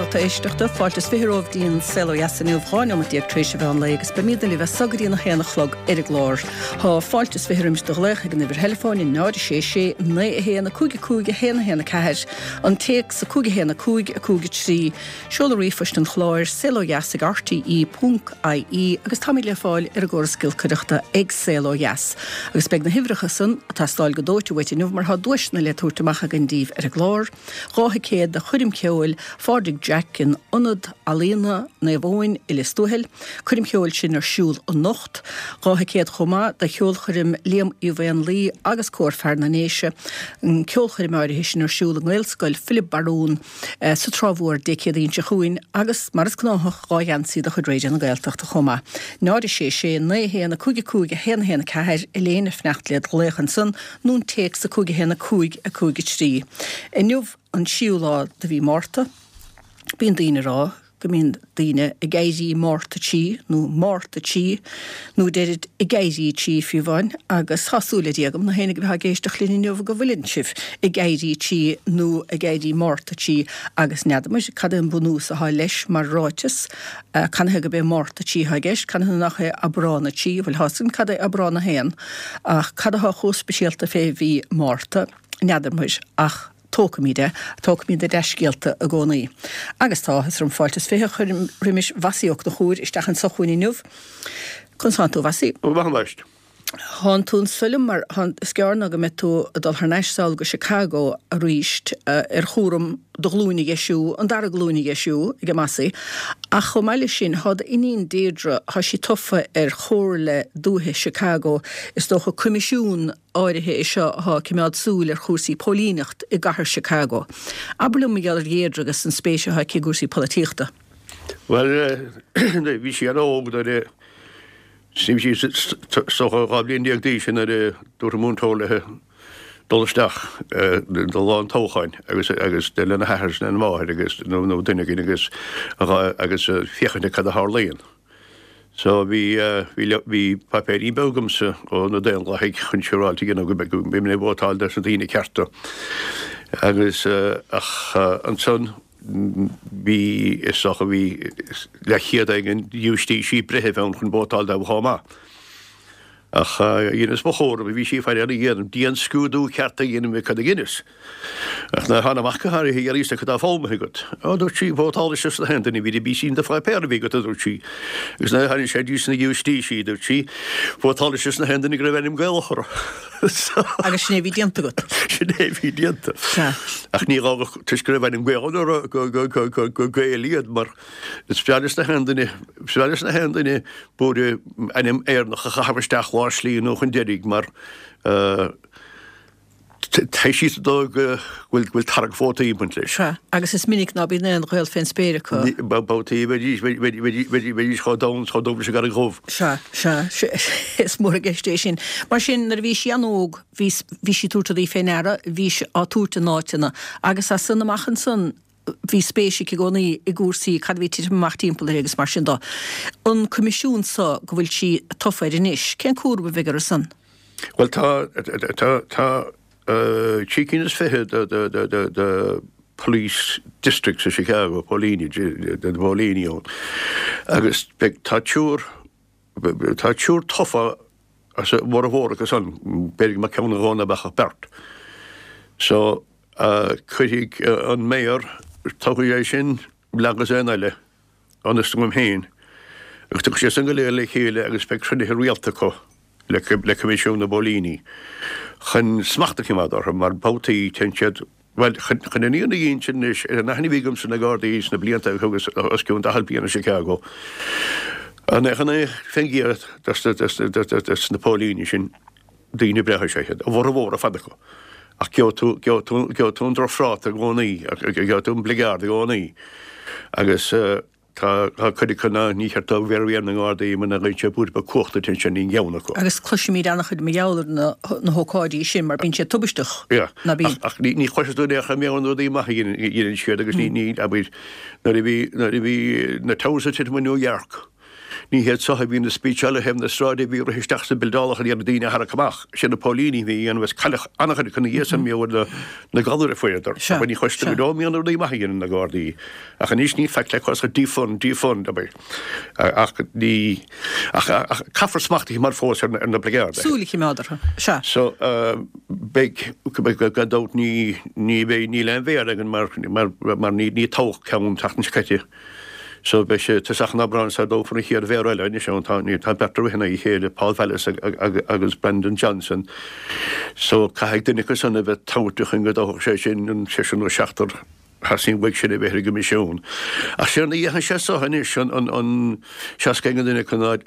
lucht éisteachta, fáilte is 20 romhaibh dtí'n Saol Ó Dheas inniu, 12 neomat tar éis an mheán lae agus beimídne libh as so go dtí an 1 a chlog ar an gclár. Thá fáilte is 20 roimis do ghlaoch ag an uimhir theileafóin 0 6 6 9 1 5 5 1 1 4, an téacs 5 1 5 5 3, Seoladh ríomhphoist an chláir, saolodheas ag rte ponc ie agus táimid le fáil ar an gcóras giolcaireachta ag Saol Ó Dheas. Agus beidh na huimhreacha san ag teastáil go dóite uait inniu mar tá duaiseanna le tabhairt amach againn daoibh ar an gclár, 2 thicéad do choirm cheoil Phádraig Jack in Ionad Ealaíona Naomh Eoin i Lios Tuathail, coirm cheoil sin ar siúl anocht. 2 thicéad chomh maith do cheolchoirm Liam Uí Mhaonlaí agus Cór Fear na nDéise, an ceolchoirm áirithe sin ar siúl i nGaelscoil Philib Barún. sa Trá Mhór Dé Céadaoin seo chugainn agus, mar is gnáthach, 2 gheansaí de chuid Raidió na Gaeltachta chomh maith. 0 6 6 9 1 5 5 1 1 4, Elaine ag fanacht le do ghlaoch ansan, nó an téacs 5 1 5 5 3. Inniu an tríú lá de mhí Márta. Bíonn daoine ag rá go mbíonn daoine ag éirí Márta tí nó Márta tí nó deirid ag éirí tí fiú amháin agus tá súil le Dia agam na héinne a bheith ag éisteacht linn inniu go bhfuileann sibh ag éirí tí nó ag éirí Márta tí agus n'fheadar cad é an bunús atá leis mar ráiteas canathaobh gurb é Márta tí atá i gceist canathaobh nach é Aibreán 3 bhuel tá a fhios againn cad é Aibreán 1 ach cad atá chomh speisialta fé mhí Márta n'fheadar muir ach Tógfaimid é. Tógfaimid na dea-scéalta i gcónaí. Agus tá áthas orm fáilte is 20 a chur roimis Mhossie Ó Conchúir isteach anso chugainn inniu. Conas tánn tú, a Mhossie? Go maith, a Mháist. Thánn tú anso liom mar is gearr ná go mbeidh tú ag dul thar n-ais sall go Chicago aríst ar chúram do ghlúin a dheisiú, an dara glúin a dheisiú ag Mossie. Ach chomh maith leis sin, thá d'iníon Deirdre, thá sí tofa ar Chomhairle Dúiche Chicago, is dócha coimisiún áirithe é seo atá ag coimeád súil ar chúrsaí póilíneacht i gcathair Chicago. Abair liom mar gheall ar Dheirdre agus an spéis atá aici i gcúrsaí polaitíochta. Bhuel, bhí sí an-óg nuair a, bhí sí is dócha 12 bhliain d'aois nuair a dúirt an múinteoir léi dul isteach do lá an toghcháin agus agus lena hathair is lena máthair agus nó duine éigin agus agus féachaint ar cad a tharlaíonn. So bhí, bhí, bhí paipéirín beag agamsa ó na Daonlathaigh chun siúráilte a dhéanamh go mbeidh, go mbeidh mé ag vótáil dos na daoine cearta. Agus ach ansan bhí, is dócha bhí leathchéad éigin giúistísí breithimh ann chun vótáil dóibh chomh maith. Ach dheineas mo chúram, bhí sí ag faire ar a dhéanamh, dianscrúdú ceart a dhéanamh ar cad a dheineas. Ach nuair a thána amach go háirithe, iarr fhios cad tá foghlamtha agat. Ó, dúirt sí, vótálais dos na haon duine, bhí bhí sí in do pháipéar a bhí agat, a dúirt sí. Agus nuair a tháinig sé dtí sna giúistísí, dúirt sí, vótálais dos na haon duine go raibh ainm Gaelach orthu. Agus sin é a bhí déanta agat. Sin é a bhí déanta. Sea. Ach ní gá go, toisc go raibh ainm Gaelach orthu, go, go, go, go, go Gaeil iad, mar Is fearr leis na haon duine, is fearr leis na haon duine buaire ainm Éireannach a chaitheamh isteach lár slí nó chun deiridh mar tá siad sa dóigh go bhfuil go bhfuil tarrac vótaí ag baint leis. Sea, agus is minic ná bíonn aon ghaol fén spéir acu. Babhtaí bheidís bheidís chomh donn chomh dubh leis an gCarraig Dhubh. Sea, sea, is mór i gceist é sin. Mar sin, nuair a bhí sí an-óg, bhí bhí sí ag tabhairt rudaí fé ndeara, bhí sí á tabhairt in áiteanna, agus as san amach ansan, bhí spéis aici i gcónaí i gcúrsaí, cad a bhí ag titim amach timpeall uirthi agus mar sin de. An coimisiún so go bhfuil sí tofa air anois, cén cúram a bheidh orthu san? Bhuel tá, tá, tá trí cinn is fiche de, de, de, de, de police districts i Chicago, póilíní, de, de phóilíní ann agus beidh, tá triúr, tá triúr tofa as a bhformhór acu san, b'fhéidir go mbeadh ceann nó dhó ná beadh ach beirt. So, Cuirfidh an Mayor, toghfaidh é sin agus aon eile, ionas agam féin, agus tiocfaidh siad san go léir le chéile agus beidh cruinnithe rialta acu le Coimisiún na bPóilíní chun smacht a choimeád orthu mar babhtaí téann siad, bhuel, chun an fhírinne a dh'inse anois, ar an aithne a bhí agamsa ar na Gardaí sna blianta a thugas os cionn 40 bliain i Chicago, an 99% des na póilíní sin, Daoine breátha is ea iad, a bhformhór ar fad acu, ach gheobhaidh tú, gheobhaidh tú, gheobhaidh tú an drochphráta i gcónaí, gheobhaidh tú an bligeard i gcónaí. Agus tá, tá cuid acu ná ní cheart dóibh bheith ar na nGardaí muna gcuireann sé buaidh beag cumhachta duit ansin níl aon cheann acu. Agus cloisimid an-chuid mar gheall ar na, na hócáidí sin mar bíonn siad tubaisteach, Yeah. ná bíonn? Ach, ach ní, ní chloisfidh tú in aon chor mar gheall ar na rudaí maithe a dhéanann, a dhéanann siad agus ní, ní, abair, nuair a bhí, nuair a bhí na towers ag titim i New York. Ní hiad so a bhíonn ag speecháil ar thaobh na sráide a bhí ag rith isteach sna buildeálacha ag iarraidh daoine a tharrac amach. Sin na póilíní a bhí a dhéanamh agus cailleadh an-chuid acu ina dhiaidh san mar gheall ar na galair a fuaireadar. Abair ní chloistear go deo an mbíonn rudaí maithe a dhéanann na Gardaí. Ach anois ní faic le cos ach defund, defund, abair. Ach ní, ach caithfear smacht a choimeád fós ar na Gardaí. Súil a choimeád orthu. Sea. So, beidh, gan dabht ní, ní bheidh, níl aon mhéara againn mar, mar, mar ní, ní toghadh ceann an tseachtain seo caite. So beidh sé tosach an Aibreáin sara dtoghfar an chéad mhéara eile anois ann. Tá, ní, tá beirt ag rith in aghaidh a chéile, Paul Vallas agus Brandon Johnson. So caithfidh duine acu san a bheith toghta chun go dtoghfadh sé sin an seisear nó seachtar a theastaíonn uaidh sin a bheith ar an gcoimisiún. Ach séard a dhéanfaidh sé so anois, an, an, an seasca aon duine acu ná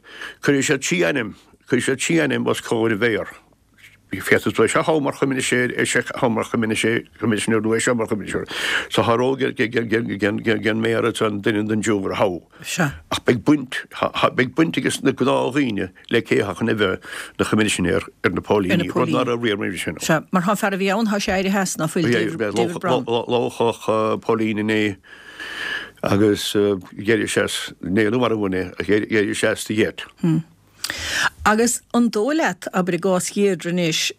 cuirfidh siad trí ainm, cuirfidh siad trí ainm os comhair an mhéara. Féadfaidh tú é seo a thoghadh mar choimisinéir, é seo a thoghadh mar choimisinéir nó é seo mar choimisinéir. So tá rogha ag an méara ansan duine den dtriúr a thoghadh. Sea. Ach beidh baint, beidh baint ages na gnáthdhaoine le cé atá chun a bheith ina choimisinéir ar na póilíní, rud ná raibh riamh roimhe sin. Sea. Mar tá an fear a bhí ann, tá sé éirithe as, ná fuil, David Brown. Loghadh póilín inné agus d'éirigh sé as, níor mharbhadh é, ach d'éirigh sé as de gheit. Agus an dóigh leat, abair i gcás Dheirdre anois,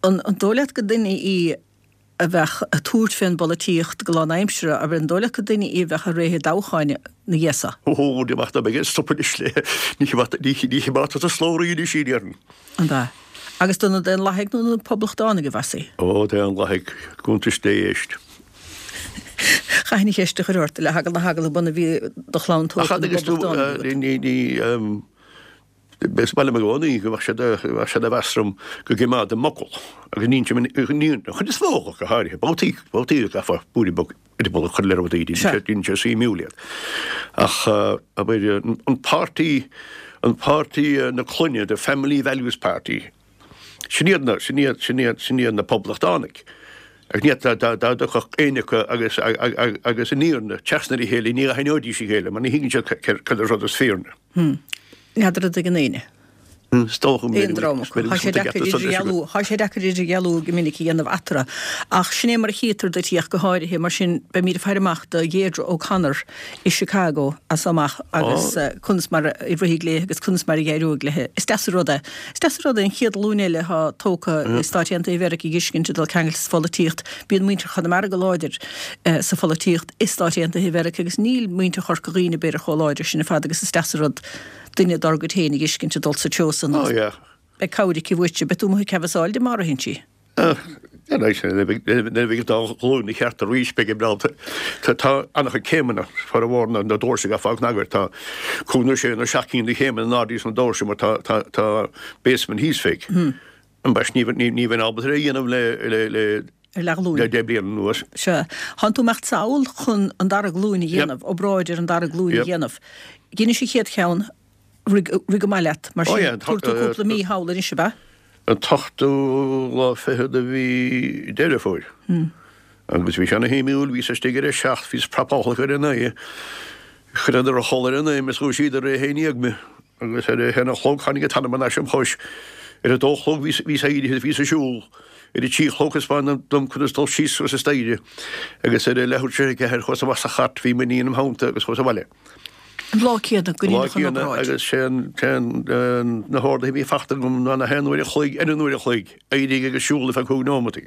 an dóigh leat gur duine í a bheadh ag tabhairt fén bpolaitíocht go lánaimseartha, abair, an dóigh leat gur duine í a bheadh ag rith i dtoghcháin ina dhiaidh so? Ó, ní amach dá mbeidh ag stop anois le, ní choimeádfar sa slabhraí anois í, déarfainn. An ea? Agus do na Daonlathaigh nó na Poblachtánaigh a bheas í? Ó, Daonlathaigh, cuntais Dé éist. Chaithfinn an cheist a chur ort, le heagla na heagla bunaidh bhí do chlann tógtha na bPoblachtánach agat. Is maith liom i gcónaí go mbeadh siad bheadh siad a mheas orm go gcoimeádaim m'fhocal agus ní an chuid is mó acu go háirithe, babhtaí, babhtaí a gcaithfeá bualadh bog eireaball a chur le rudaí, déanann sé suimiúil iad. Ach abair an páirtí, an páirtí na clainne, the Family Values Party, Sin iad na, sin iad, sin iad, sin iad na Poblachtánaigh. Agus ní dá, dá, dá dtiocfadh éinne acu agus, agus an fhírinne trasna ar a chéile, ní aithneoidís a chéile mar ní thuigeann siad cad é an rud is fírinne. Hmm. N'fheadar an dtuigeann éinne. Is dócha go Aon dream acu. Tá sé deacair idirdhealú, tá sé deacair idirdhealú go minic a dhéanamh eatarthu. Ach sin é mar a chítear duit í ach go háirithe, mar sin beimid ag faire amach do Dheirdre O'Connor i Chicago as so amach agus conas mar a rithfidh léi agus conas mar a d'éireoidh léi. Is deas an rud é. Is deas an rud é an chéad ghlúin eile atá tógtha i Stáit Aontaithe Mheiriceá a dh'fheiscint ag dul ceangailte sa pholaitíocht. Bíonn muintir Chonamara go láidir sa pholaitíocht i Stáit Aontaithe Mheiriceá agus níl muintir Chorca Dhuibhne b'fhéidir chomh láidir sin ar fad agus is deas an rud duine dár gcuid féin a dh'fheiscint ag dul sa treo san agus beidh cabhair aici uaitse. Beidh tú amuigh ag canbhasáil di má ritheann sí. Nuair a bheidh an dá ghlúin ina cheart arís, beidh an breall. Tá an-chuid céimeanna, formhór na doirse ag fáil cnagar. Tá cúig nó sé nó seacht gcinn de chéimeanna in airde sna doirse mar tá basement thíos fé. Ambaist, ní bheinn ábalta é a dhéanamh le Ar leathghlúin. le 10 bliana anuas. Sea. Thánn tú imeacht sall chun an dara glúin a dhéanamh, obráid ar an dara glúin a dhéanamh. Dheinis an chéad cheann, rith go maith leat, mar sin, tabharfaidh tú cúpla mí thall anois, ab ea? An t-ochtú lá fichead de mhí Deireadh Fómhair. Agus bhí sé ana shuimiúil, bhíos istigh ar a seacht, bhíos prapálach ar a naoi, chuireadar a chodladh ar a naoi mé is dhúisíodar ar a haon dhéag mé, agus ar a haon a chlog tháinig an t-anam thar n-ais im chois. Ar a dó a chlog bhíos éirithe is bhíos ag siúl. Ar a trí a chlog thaispeánadh dom conas dul síos suas an staighre, agus ar a leathuair tar éis a ceathair chuas amach sa chairt, bhí m'iníon im theannta agus chuas abhaile. An lá céanna go ndeineadh an obráid. Agus sé an na horduithe a bhí fachta agam ná na haon uair a chloig ar an uair a chloig, éirigh agus siúl ar feadh cúig nóimeataí.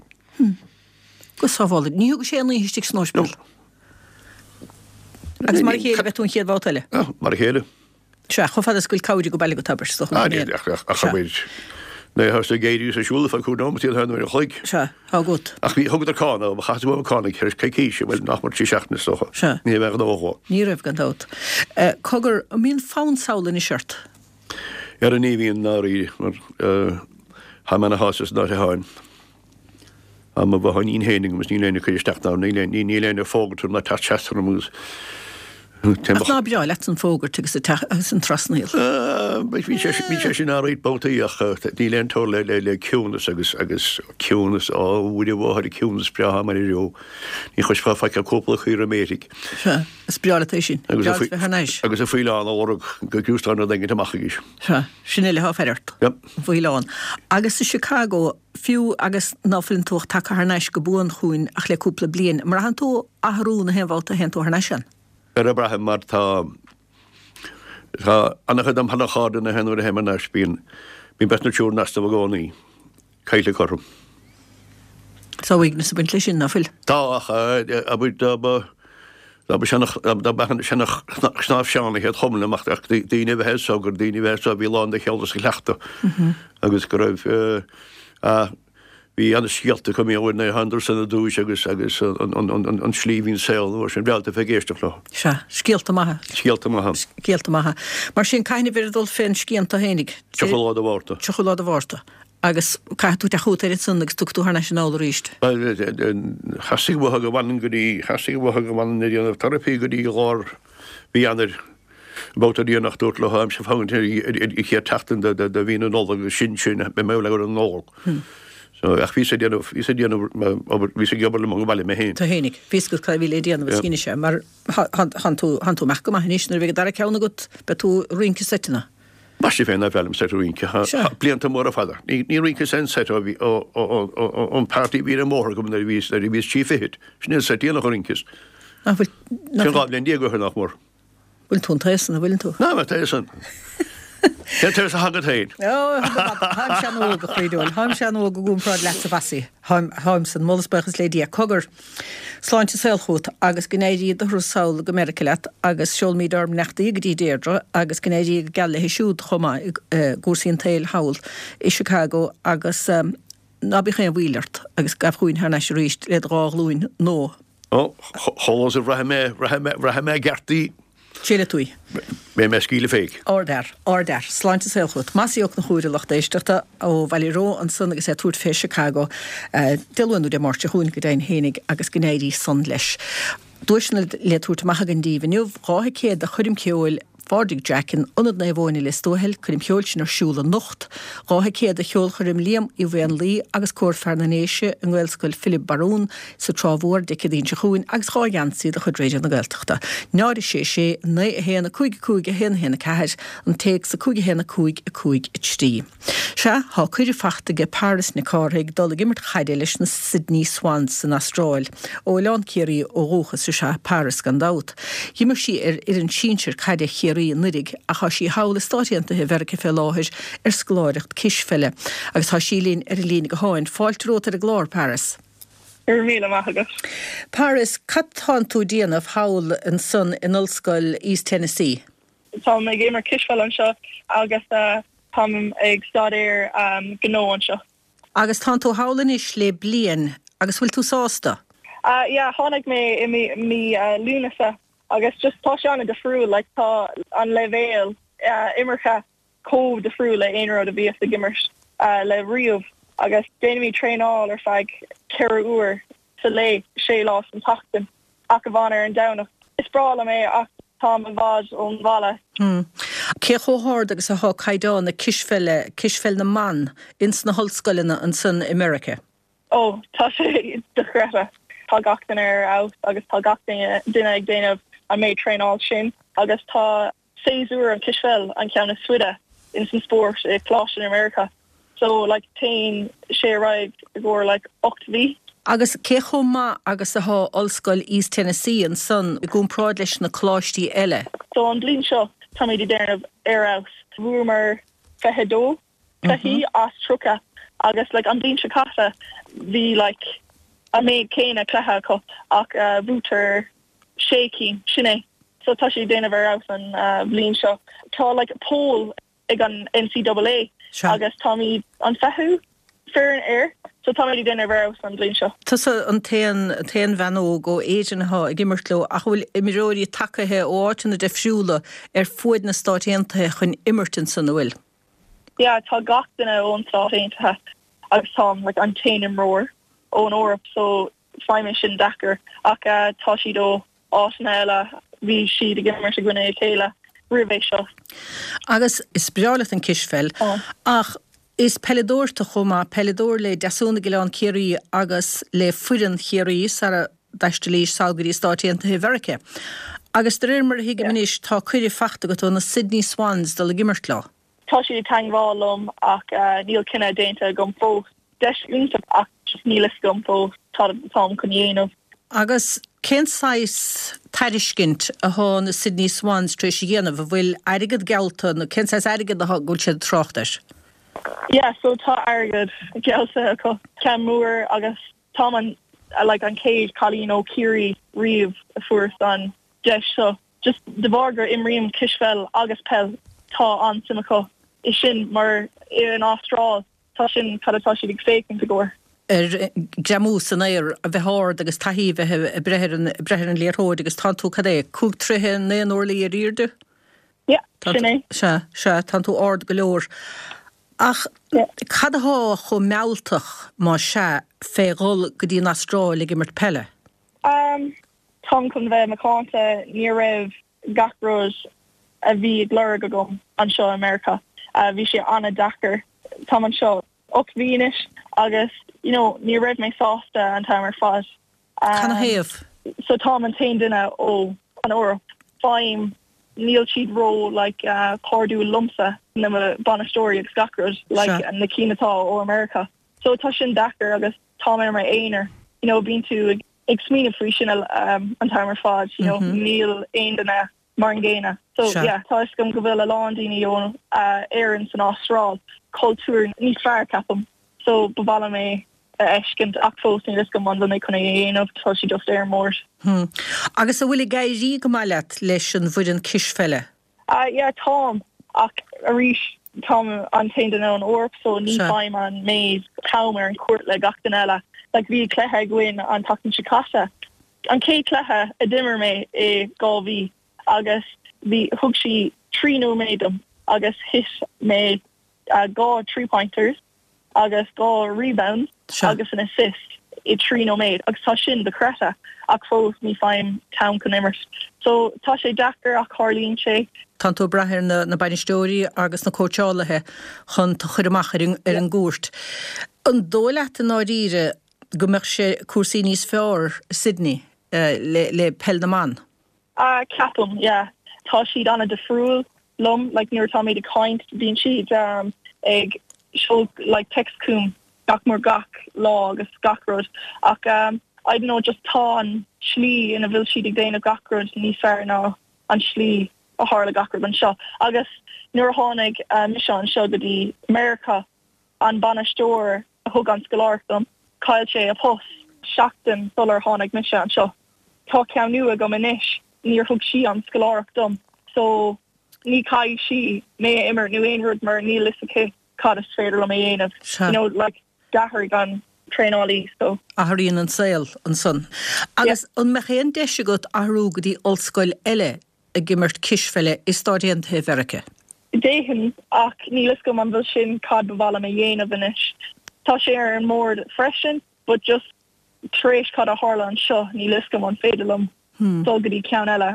Go sábhála. Ní thug sé aon oíche istigh san ospidéal. Agus mar a chéile beidh tú an chéad bhabhta eile. Mar a chéile. Sea, chomh fada is go bhfuil cabhair ag baile agat, abair, is dócha. Ah, ní, ach, ach, ach, abair, nuair atá tú ag éirí is ag siúl ar feadh cúig nóimeataí an haon uair a chloig. Sea, tá agat. Ach bhí, thugadar cáin dom, chaith tú uaim cáin ag tar éis coicíse, bhuel, nach mór trí seachtaine is dócha. Sea. Ní raibh aon ghnó dhó. Ní raibh, gan dabht. Cogar, an mbíonn fonn sall anois ort? Ara ní bhíonn, ndáiríre, mar, tá mé ana shásta san áit atáim. Tá mo bhotháinín féin agam is níl éinne ag cur isteach ná níl éinne ag fógairt orm ná teacht seasta orm agus Ach ná breá leat an fógairt agus agus an trasnaíl? Bhí sé bhí sé sin alright babhtaí ach níl aon teora le le ciúnas agus agus ciúnas á Mhuire Mháthair ciúnas breá mar a raibh. Ní chloisfeá faic ach cúpla caora méirigh. Sea, is breá leat é sin. Breá leat bheith thar n-ais. Agus an faoileán á lorg go gcrústán rud éigint amach arís. Sea, sin uile atá ag faire ort. Yep. An faoileán. Agus i Chicago, Fiú agus ná fuileann tú ach tagtha thar n-ais go buan chugainn ach le cúpla bliain, an mbraitheann tú athrú na haon bhabhta a théann tú thar n-ais ann? Ara braithim mar tá. Tá an-chuid dom sheana-chairde na nuair a théim thar n-ais bíonn bíonn beirt nó triúr in easnamh i gcónaí. Caillte acu orm. Tá uaigneas ag baint leis sin, ná fuil? Tá, ach abair dá mba dá mba seana dá mba seana-chnámh Seán a chéad chum liom ach daoine a bheith anso gur daoine a bheith anso a bhí lán de cheol is de chleachtadh agus go raibh a Bhí ana-scéalta acu mé uair na hAnderson ar dtúis agus agus an slí a bhí an saol an uair sin. Bhreá leat a bheith ag éisteacht leo. Sea, scéalta maithe. Scéalta maithe. Scéalta maithe. Mar sin, cathain a bheir ag dul fén scian tú fhéinig? 30 lá de Mhárta. 30 lá de Mhárta. Agus caithfidh tú teacht chugat air ansan agus tiocfaidh tú thar n-ais anall arís. Bhuel, theastaigh uathu go bhfanfainn go dtí, theastaigh uathu go bhfanfainn ag déanamh teiripí go dtí lár mhí Eanáir. Babhta déanach dúrt leo táimse ag fágaint ar an chéad tseachtain de mhí na Nollag agus sin sin beidh mé abhaile ar an Nollaig. So ach bhíos ag déanamh bhíos ag déanamh obair bhíos ag obair liom ag baile mé féin. Tú fhéinig. Bhí fhios agat cad a bhí le déanamh is dheinis é mar thánn tú thánn tú amach go maith anois nuair a bheidh an dara ceann agat beidh tú ag rince seiteanna. Mar sin féin nár bhreá liom seit rince. Tá blianta móra fada. Ní ní rinceas aon seit ó bhí ó ó ó ón party a bhí ar an mbóthar agam nuair a bhíos nuair a bhíos trí fichid. Sin é an seit déanach a rinceas. Nach bhfuil nach Sin 12 bhliain ó shin nach mór. Bhfuil tú an t-aos san, an bhfuileann tú? Ná, mé t-aos san. Cén t-aos atá agat féin? Ó, táim sean-óg, a chroí dhúil. Táim sean-óg i gcomparáid leatsa, Mhassie. Táim, táim san. Moladh is buíochas le Dia. Cogar, sláinte is saol chugat agus go n-éirí do thuras sall go Meiriceá leat agus seolfaimid ár mbeannachtaí go dtí Deirdre agus go n-éirí go geal léi siúd chomh maith i gcúrsaí an tsaoil thall i Chicago agus ná bíodh aon mhoill ort agus gabh chugainn thar n-ais arís le do dhá ghlúin nua. Ó, chomh luath is a bhraithfidh mé, bhraithfidh mé, bhraithfidh mé i gceart í. Seolfaidh tú í. Beidh mé ag scaoileadh féig. Ardfhear. Ardfhear. Sláinte is saol chugat. Mossie Ó Conchúir, a lucht éisteachta, ó Bhaile Reo ansan agus é ag tabhairt fé Chicago Dé Luain nó Dé Máirt seo chugainn go deimhin fhéinig agus go n-éirí san leis. Duaiseanna le tabhairt amach againn daoibh inniu, 2 thicéad do choirm cheoil Phádraig Jack in Ionad Naomh Eoin i Lios Tuathail, coirm cheoil sin ar siúl anocht. 2 thicéad do cheolchoirm Liam Uí Mhaonlaí agus Cór Fear na nDéise i nGaelscoil Philib Barún sa Trá Mhór Dé Céadaoin seo chugainn agus 2 gheansaí de chuid Raidió na Gaeltachta. 0 6 6 9 1 5 5 1 1 4, an téacs 5 1 5 5 3. Sea, thá cuireadh fachta aige Paris Nic Cárthaigh dul ag imirt chaide leis na Sydney Swans san Astráil. Ó Oileán Ciarraí ó dhúchas is ea Paris gan dabht. Dh'imir sí ar fhoireann sinsir caide Chiarraí anuiridh ach thá sí thall i Stáit Aontaithe Mheirice fé láthair ar scoláireacht cispheile. Agus thá sí linn ar an líne gutháin. Fáilte romhat ar an gclár, Paris. Go raibh míle maith agat. Paris, cad tánn tú déanamh thall ansan in Ollscoil East Tennessee? Táim ag imirt cispheile anseo agus táim ag staidéar gnó anseo. Agus tánn tú thall anois le bliain agus bhfuil tú sásta? Yeah, tháinig mé i mí Lúnasa agus just tá sé an-difriúil, like tá an leibhéal imeartha chomh difriúil le aon rud a bhíos ag imirt le riamh agus déanaimid traenáil ar feadh 4 uair sa lae, sé lá san tseachtain, ach amháin ar an Domhnach. Is breá liom é ach táim i bhfad ón bhaile. Cé chomh hard agus athá caighdeán na cispheile, cispheil na mban, ins na hollscoileanna ansan i Meirice? Ó, tá sé dochreidte. Tá gach duine ar fheabhas agus tá gach duine ag déanamh an méid traenáil sin agus tá séasúr an cispheil an ceann is faide ins an spórt i coláiste i Meiriceá so like téann sé ar aghaidh i gcomhair like 8 mhí. Agus cé chomh maith agus athá Ollscoil East Tennessee ansan i gcomparáid leis na coláistí eile? So an bliain seo táimid ag déanamh ar fheabhas. Bhuamar 22 cluichí as 30 agus like an bliain seo caite bhí like an méid céanna cluiche acu ach bhuaitear sé cinn, sin é. So tá sé ag déanamh ar fheabhas an bhliain seo. Tá like poll ag an NCAA agus táimid an fichiú foireann air so táimid ag déanamh ar fheabhas an bhliain seo. Tusa an t-aon t-aon bhean óg ó Éirinn athá ag imirt leo ach an bhfuil imreoirí tagaithe ó áiteanna difriúla ar fuaid na Stáit Aontaithe chun imirt ansan, an bhfuil? Yeah, tá gach duine ón Stáit Aontaithe agus táim like an t-aon imreoir ón Eoraip so Faighim é sin deacair ach tá siad ó áiteanna eile, bhí siad ag imirt i gcoinne a chéile roimh é seo. Agus is breá leat an cispheil ach is peileadóir tú chomh maith, peileadóir le Deasún ag Oileán Ciarraí agus le foireann Chiarraí sara dtaistealaís sall go dtí Stáit Aontaithe Mheirice. Agus de réir mar a thuigim anois tá cuireadh fachta agat ó na Sydney Swans dul ag imirt leo. Tá siad ag teangmháil liom ach níl cinneadh déanta agam fós. Deis iontach ach just níl fhios agam fós cad atáim chun dhéanamh. Agus. Cén saghas tairiscint athá na Sydney Swans tar éis a dhéanamh? An bhfuil airgead geallta nó cén saghas airgead athá go bhfuil siad ag trácht air? Yeah, so tá airgead geallta acu, ceann mór agus táim an like an chéad cailín ó Chiarraí riamh a fuair an deis seo. Just de bharr gur imrím cispheil agus peil tá an-suim acu i sin mar in Astráil Tá sin cad atá siad ag féachaint i gcomhair. ar greamú san aer, a bheith ard agus taithí a bheith ag breith ar an, breith ar an liathróid agus tánn tú, cad é, 5 troithe 9 n-orlaí ar airde? Yeah, sin é. Sea, sea, tánn tú ard go leor. Ach cad athá chomh mealltach, má sea, fé dhul go dtí an Astráil ag imirt peile? Um, táim chun bheith macánta, ní raibh gach rud a bhí ag lorg agam anseo i Meiriceá. Bhí sé an-deacair. Táim anseo 8 mhí anois agus you know ní raibh mé sásta an t-am ar fad. Canathaobh? So táim an t-aon duine ó an Eoraip. Faighim níl siad ró like cairdiúil liomsa, na bainisteoirí agus gach rud like na cinn atá ó America. So tá sin deacair agus táim ar m'aonar. You know bíonn tú ag ag smaoineamh faoi sin an t-am ar fad, you know, níl aon duine mar an gcéanna. So yeah, tá fhios agam go bhfuil a lán daoine ó Éirinn san Astráil, cultúr níos fearr ceapaim. So ba mhaith liom é a fheiscint ach fós níl fhios agam an bhfuil mé chun é a dhéanamh, tá sé just ar an mbord. Agus an bhfuil ag éirí go maith leat leis an bhfoireann cispheile? Ah yeah táim, ach arís táim an t-aon duine ón Eoraip so ní faighim an méid t-am ar an chúirt le gach duine eile. Like bhí cluiche againn an tseachtain seo caite, an chéad cluiche a d'imir mé i 2 mhí agus bhí, thug sí 3 nóiméad dom agus thit mé 2 three pointers. agus 2 rebound agus an assist i 3 nóiméad agus tá sin dochreidte ach fós ní faighim t-am chun imirt. So tá sé deacair ach tarlaíonn sé. Tánn tú ag brath ar na bainisteoirí agus na cóitseálaithe chun tú a chur amach ar an gcúirt. An dóigh leat i ndáiríre go mbeadh sé cúrsaí níos fearr i Sydney le peil na mban? Ah ceapaim, yeah. Tá siad an-difriúil liom, like nuair atáimid ag caint bíonn siad ag seoladh like text chugam gach mór gach lá agus gach rud ach I don't know just tá an slí ina bhfuil siad ag déanamh gach rud níos fearr ná an slí a tharla gach rud anseo agus nuair a tháinig mise anseo go dtí Meiriceá an bainisteoir a thug an scoláireacht dom, chaill sé a post seachtain sular tháinig mise anseo. Tá ceann nua agam anois, níor thug sí an scoláireacht dom so ní chaithfidh sí mé a imirt nó aon rud mar níl fhios aici cad is féidir liom a dhéanamh. You know, like, d'athraigh an traenálaí so. Athraíonn an saol ansan. Agus an mbeadh aon deis agat athrú go dtí ollscoil eile ag imirt cispheile i Stáit Aontaithe Mheiriceá? D'fhéadfainn, ach níl fhios agam an bhfuil sin cad ba mhaith liom a dhéanamh anois. Tá sé ar an mbord freisin, but just tar éis cad a tharla anseo, níl fhios agam an féidir liom dul go dtí ceann eile.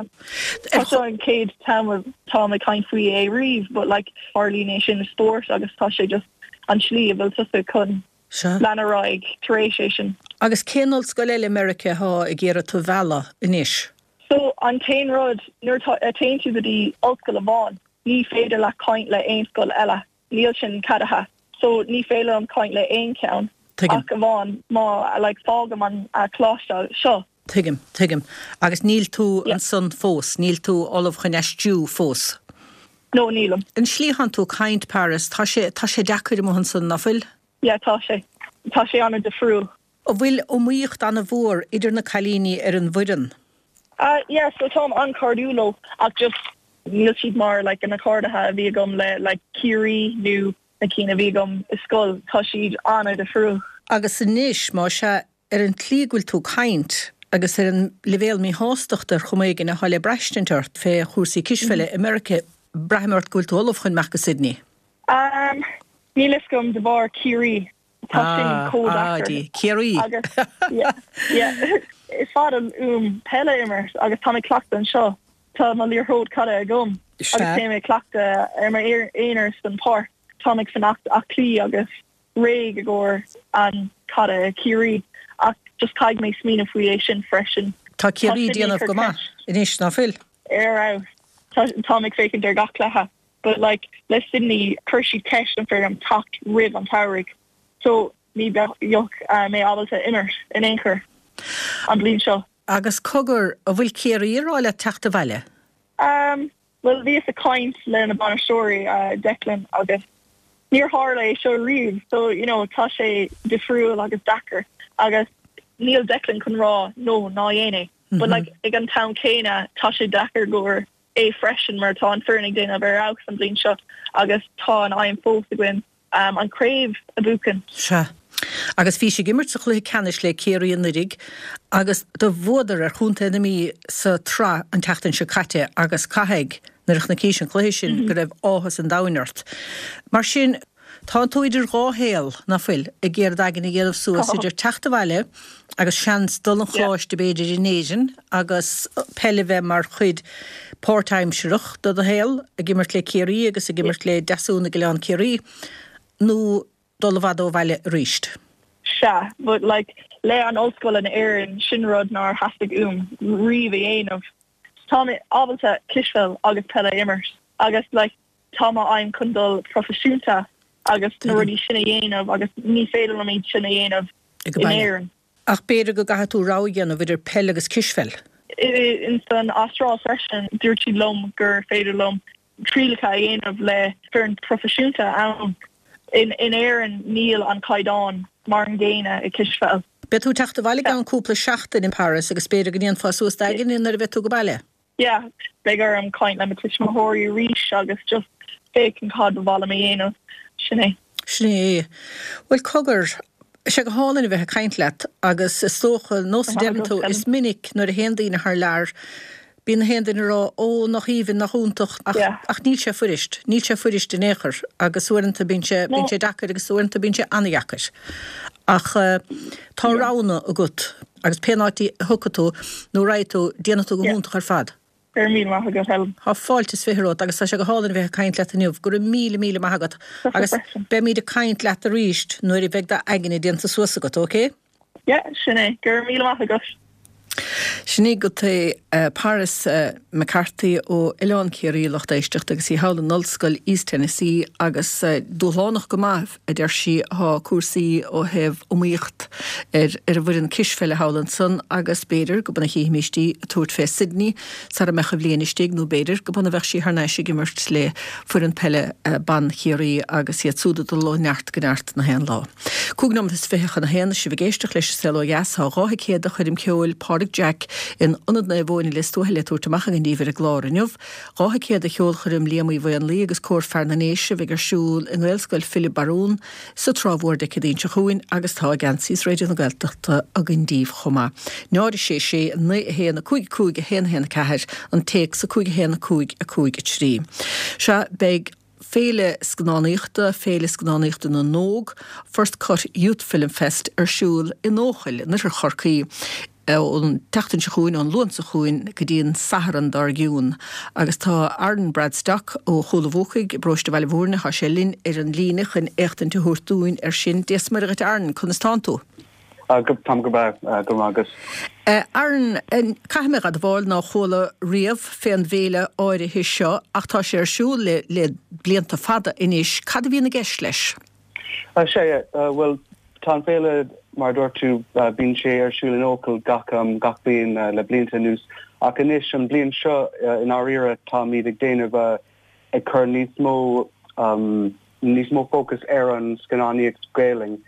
Tá seo an chéad t-am atáim ag caint faoi é riamh, but like tarlaíonn é sin i spórt agus tá sé just an tslí a bhfuil tusa chun lean ar aghaidh tar éis é sin. Agus cén ollscoil eile i Meiriceá atá ag iarraidh tú a mhealladh anois? So, an t-aon rud, nuair a téann tú go dtí ollscoil amháin, ní féidir leat caint le aon scoil eile. Níl sin ceadaithe. So, ní féidir liom caint le aon cheann Tuigim. ach amháin má, like, fágaim an coláiste seo. Tuigim, tuigim. Agus níl tú ansan fós, níl tú ullamh chun aistriú fós? No, nílim. An slí atánn tú ag caint, Paris, tá sé, tá sé deacair amuigh ansan, ná fuil? Yeah, tá sé. Tá sé an-difriúil. An bhfuil iomaíocht an-mhór idir na cailíní ar an bhfoireann? Ah yeah, so táim an-chairdiúil leo ach just níl siad mar like na cairde a bhí agam le like Ciarraí nó na cinn a bhí agam i scoil, tá siad an-difriúil. Agus anois, más ea, ar an tslí go bhfuil tú ag caint agus ar an leibhéal míshástachta ar chuma éigin atá le braistint ort fé chúrsaí cispheile i Meiriceá, braithim ort go bhfuil tú ullamh chun imeacht go Sydney. Um, níl fhios agam de bharr Ciarraí. Tá sin chomh Ah, deacair. Dia. Ciarraí! Agus, yeah, yeah. Is fada uaim peil a imirt agus táim ag cleachtadh anseo. Tá mo liathróid caide agam Sea. agus téim ag cleachtadh ar m'aonar san páirc. Táim ag fanacht aclaí agus réidh i gcomhair an caide i Ciarraí ach just caithfidh mé smaoineamh faoi é sin freisin. Tá Tá Ciarraí ag Sydney déanamh ag go cur maith ceist anois, ná fuil? ar fheabhas. Tá, táim ag féachaint ar gach cluiche. But like le Sydney chuir siad ceist an féidir liom teacht roimh an tsamhraidh so ní bheadh mé ábalta imirt in aon chor an bhliain seo. Agus cogar, an bhfuil Ciarraí ag rá leat teacht abhaile? Um, bhuel bhíos ag caint le na bainisteoirí, Declan agus níor tharla é seo riamh so you know tá sé difriúil agus deacair agus níl Declan chun rá no ná dhéan é but like ag an t-am céanna tá sé deacair go leor é freisin mar tá an foireann ag déanamh ar fheabhas an bhliain seo agus tá an aidhm fós againn an craobh a bhuachan. Sea. Agus bhís ag imirt sa chluiche ceannais le Ciarraí anuraidh agus do bhuadar ar chontae na Mí sa tsraith an tseachtain seo caite agus caithfidh, nuair a chonaicis an cluiche sin, go raibh áthas an domhain ort. Mar sin, tánn tú idir dhá shaol, ná fuil, ag iarraidh d'aigne a dhéanamh suas idir teacht abhaile agus seans dul 'on choláiste b'fhéidir in Éirinn agus peil a bheith mar chuid páirtaimsearach de do shaol, ag imirt le Ciarraí agus ag imirt le Deasún ag Oileán Ciarraí, nó dul i bhfad ó bhaile arís. Sea, but like le an ollscoil in Éirinn, sin rud nár theastaigh uaim riamh a dhéanamh. Tá mé ábalta cispheil agus peil a imirt agus like tá mo aidhm chun dul proifisiúnta agus na rudaí sin a dhéanamh agus ní féidir liom iad sin a dhéanamh in Éirinn. Ach b'fhéidir go gcaithfidh tú rogha a dhéanamh idir peil agus cispheil. Ins an Astráil freisin, dúirt siad liom gur féidir liom trialacha a dhéanamh le foireann proifisiúnta ann. In Éirinn níl an caighdeán mar an gcéanna i cispheil. Beidh tú ag teacht abhaile i gceann cúpla seachtain Paris agus b'fhéidir go ndéanfá suas d'aigne nuair a bheidh tú go baile. Yeah, beidh orm caint le mo tuismitheoirí arís agus just féachaint cad ba mhaith liom a dhéanamh. Sin é. Sin é. Bhuel, cogar, tá sé go hálainn a bheith ag caint leat agus is dócha, nós a deireann tú, is minic nuair a théann daoine thar lear, bíonn na haon duine ag rá, ó, nach aoibhinn, nach iontach, ach, ach níl sé fuirist, níl sé fuirist in aon chor agus uaireanta bíonn sé, bíonn sé deacair agus uaireanta bíonn sé an-dheacair. Ach tá roghanna agat agus pén áit a thiocfaidh tú nó a raghaidh tú, déanfaidh tú go hiontach ar fad. Go raibh míle maith agat, Helen. Tá fáilte is 20 romhat agus tá sé go hálainn a bheith ag caint leat inniu. Go raibh míle, míle maith agat agus beimid ag caint leat arís nuair a bheidh d'aigne déanta suas agat, ok? Yeah, sin é. Go raibh míle maith agat. Sin í agat é Paris McCarthy ó Oileán Ciarraí, lucht éisteachta, agus í thall in Ollscoil East Tennessee agus dúshlánach go maith, a deir sí, atá cúrsaí ó thaobh iomaíocht ar ar an bhfoireann cispheile thall ansan agus b'fhéidir go b'ann a chífimíst í ag tabhairt fé Sydney sara mbeadh an bhliain istigh nó b'fhéidir go b'ann a bheadh sí thar n-ais ag imirt le foireann peile ban Chiarraí agus iad súd ag dul ó neart go neart na haon lá. 25 nóiméad chun a haon, is sibh ag éisteacht leis an Saol Ó Dheas. Tá 2 thicéad do choirm ceoil Pádraig Jack in Ionad Naomh Eoin i Lios Tuathail le tabhairt amach againn daoibh ar an gclár inniu. 2 thicéad do cheolchoirm Liam Uí Mhaonlaí agus Cór Fear na nDéise a bheidh ar siúl i nGaelscoil Philib Barún sa Trá Mhór Dé Céadaoin seo chugainn agus tá geansaí Raidió na Gaeltachta againn daoibh chomh maith. 0 6 6 9 1 5 5 1 1 4 an téacs 5 1 5 5 3. Sea, beidh. Féile Scannánaíochta, Féile Scannánaíochta na nÓg, First Cut Youth Film Fest, ar siúl in Eochaill, in oirthear Chorcaí, ón tseachtain seo chugainn, ón Luan seo chugainn go dtí an Satharn dár gcionn. Agus tá Aaron Bradstock ó Chúil an Bhuacaigh i bparóiste Bhaile Mhúirne, tá sé linn ar an líne chun éachtaint a thabhairt dúinn air sin. Dia 's Muire dhuit Aaron, conas tánn tú? Táim go breá, go raibh maith agat. Aaron, caithfidh mé a admháil nár chuala riamh fén bhféile áirithe seo ach tá sé ar siúl le le blianta fada anois. Cad a bhíonn i gceist leis? Sea, bhuel, tá an féile, mar a dúirt tú, bíonn sé ar siúl in Eochaill gach gach bliain le blianta anuas ach anois, an bhliain seo, i ndáiríre, táimid ag déanamh ag cur níos mó níos mó fócas ar an scannánaíocht Gaelainn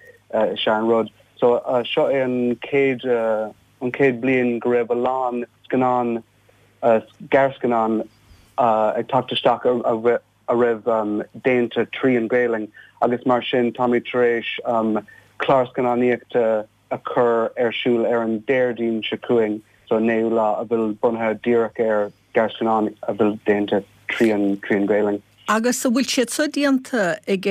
is ea an rud. So seo é an chéad an chéad bliain go raibh a lán scannán gearrscannán ag teacht isteach a a raibh déanta trí an Ghaelainn agus mar sin táimid tar éis clár scannánaíochta a chur ar siúl ar an Déardaoin seo chugainn, so an naoú lá, a bhfuil bunaithe díreach ar gearrscannán a bhfuil déanta trí an trí an Ghaelainn. Agus an bhfuil siad seo déanta ag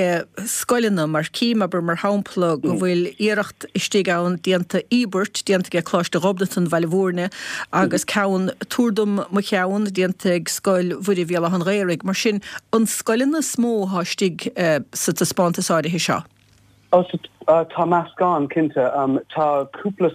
scoileanna, mar cím, abair, mar shampla, go bhfuil iarracht istigh ann déanta, Íobairt déanta ag Coláiste Ghobnatan, Bhaile Mhúirne, agus ceann, Tabhair dom mo cheann, déanta ag Scoil Mhuire Bhéal Átha an Ghaorthaidh. Mar sin, an scoileanna is mó atá istigh sa taispeántas áirithe seo? Ó, so, tá meascán, cinnte. Tá cúpla,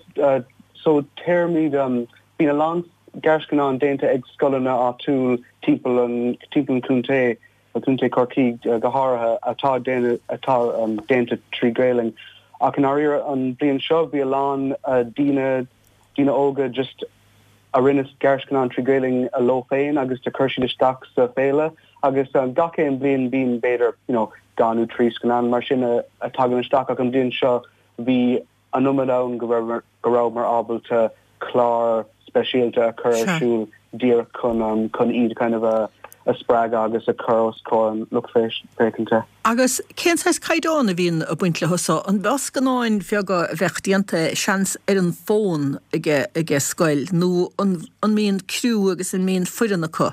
so, téarmaí, bíonn a lán gearrscannán déanta ag scoileanna áitiúil timpeall an timpeall an chontae, Contae Chorcaí go háirithe, atá déanamh atá déanta trí Ghaelainn. Ach i ndáiríre an bhliain seo bhí a lán daoine daoine óga just. a rinne gearrscannán trí Ghaelainn leo féin agus do chuir siad isteach sa féile agus gach aon bhliain bíonn b'fhéidir you know dhá nó trí scannán mar sin a tagann isteach ach an bhliain seo bhí an iomad ann go raibh go rabhamar ábalta clár speisialta a chur ar siúl díreach chun chun iad kind of a a spreagadh agus a chur os comhair an lucht féachanta. Agus cén saghas caighdeán a bhíonn ag baint leo so? An mbeadh scannáin bheaga a bheadh déanta, seans, ar an bhfón ag ag scoil nó an an mbíonn criú agus an mbíonn foireann acu?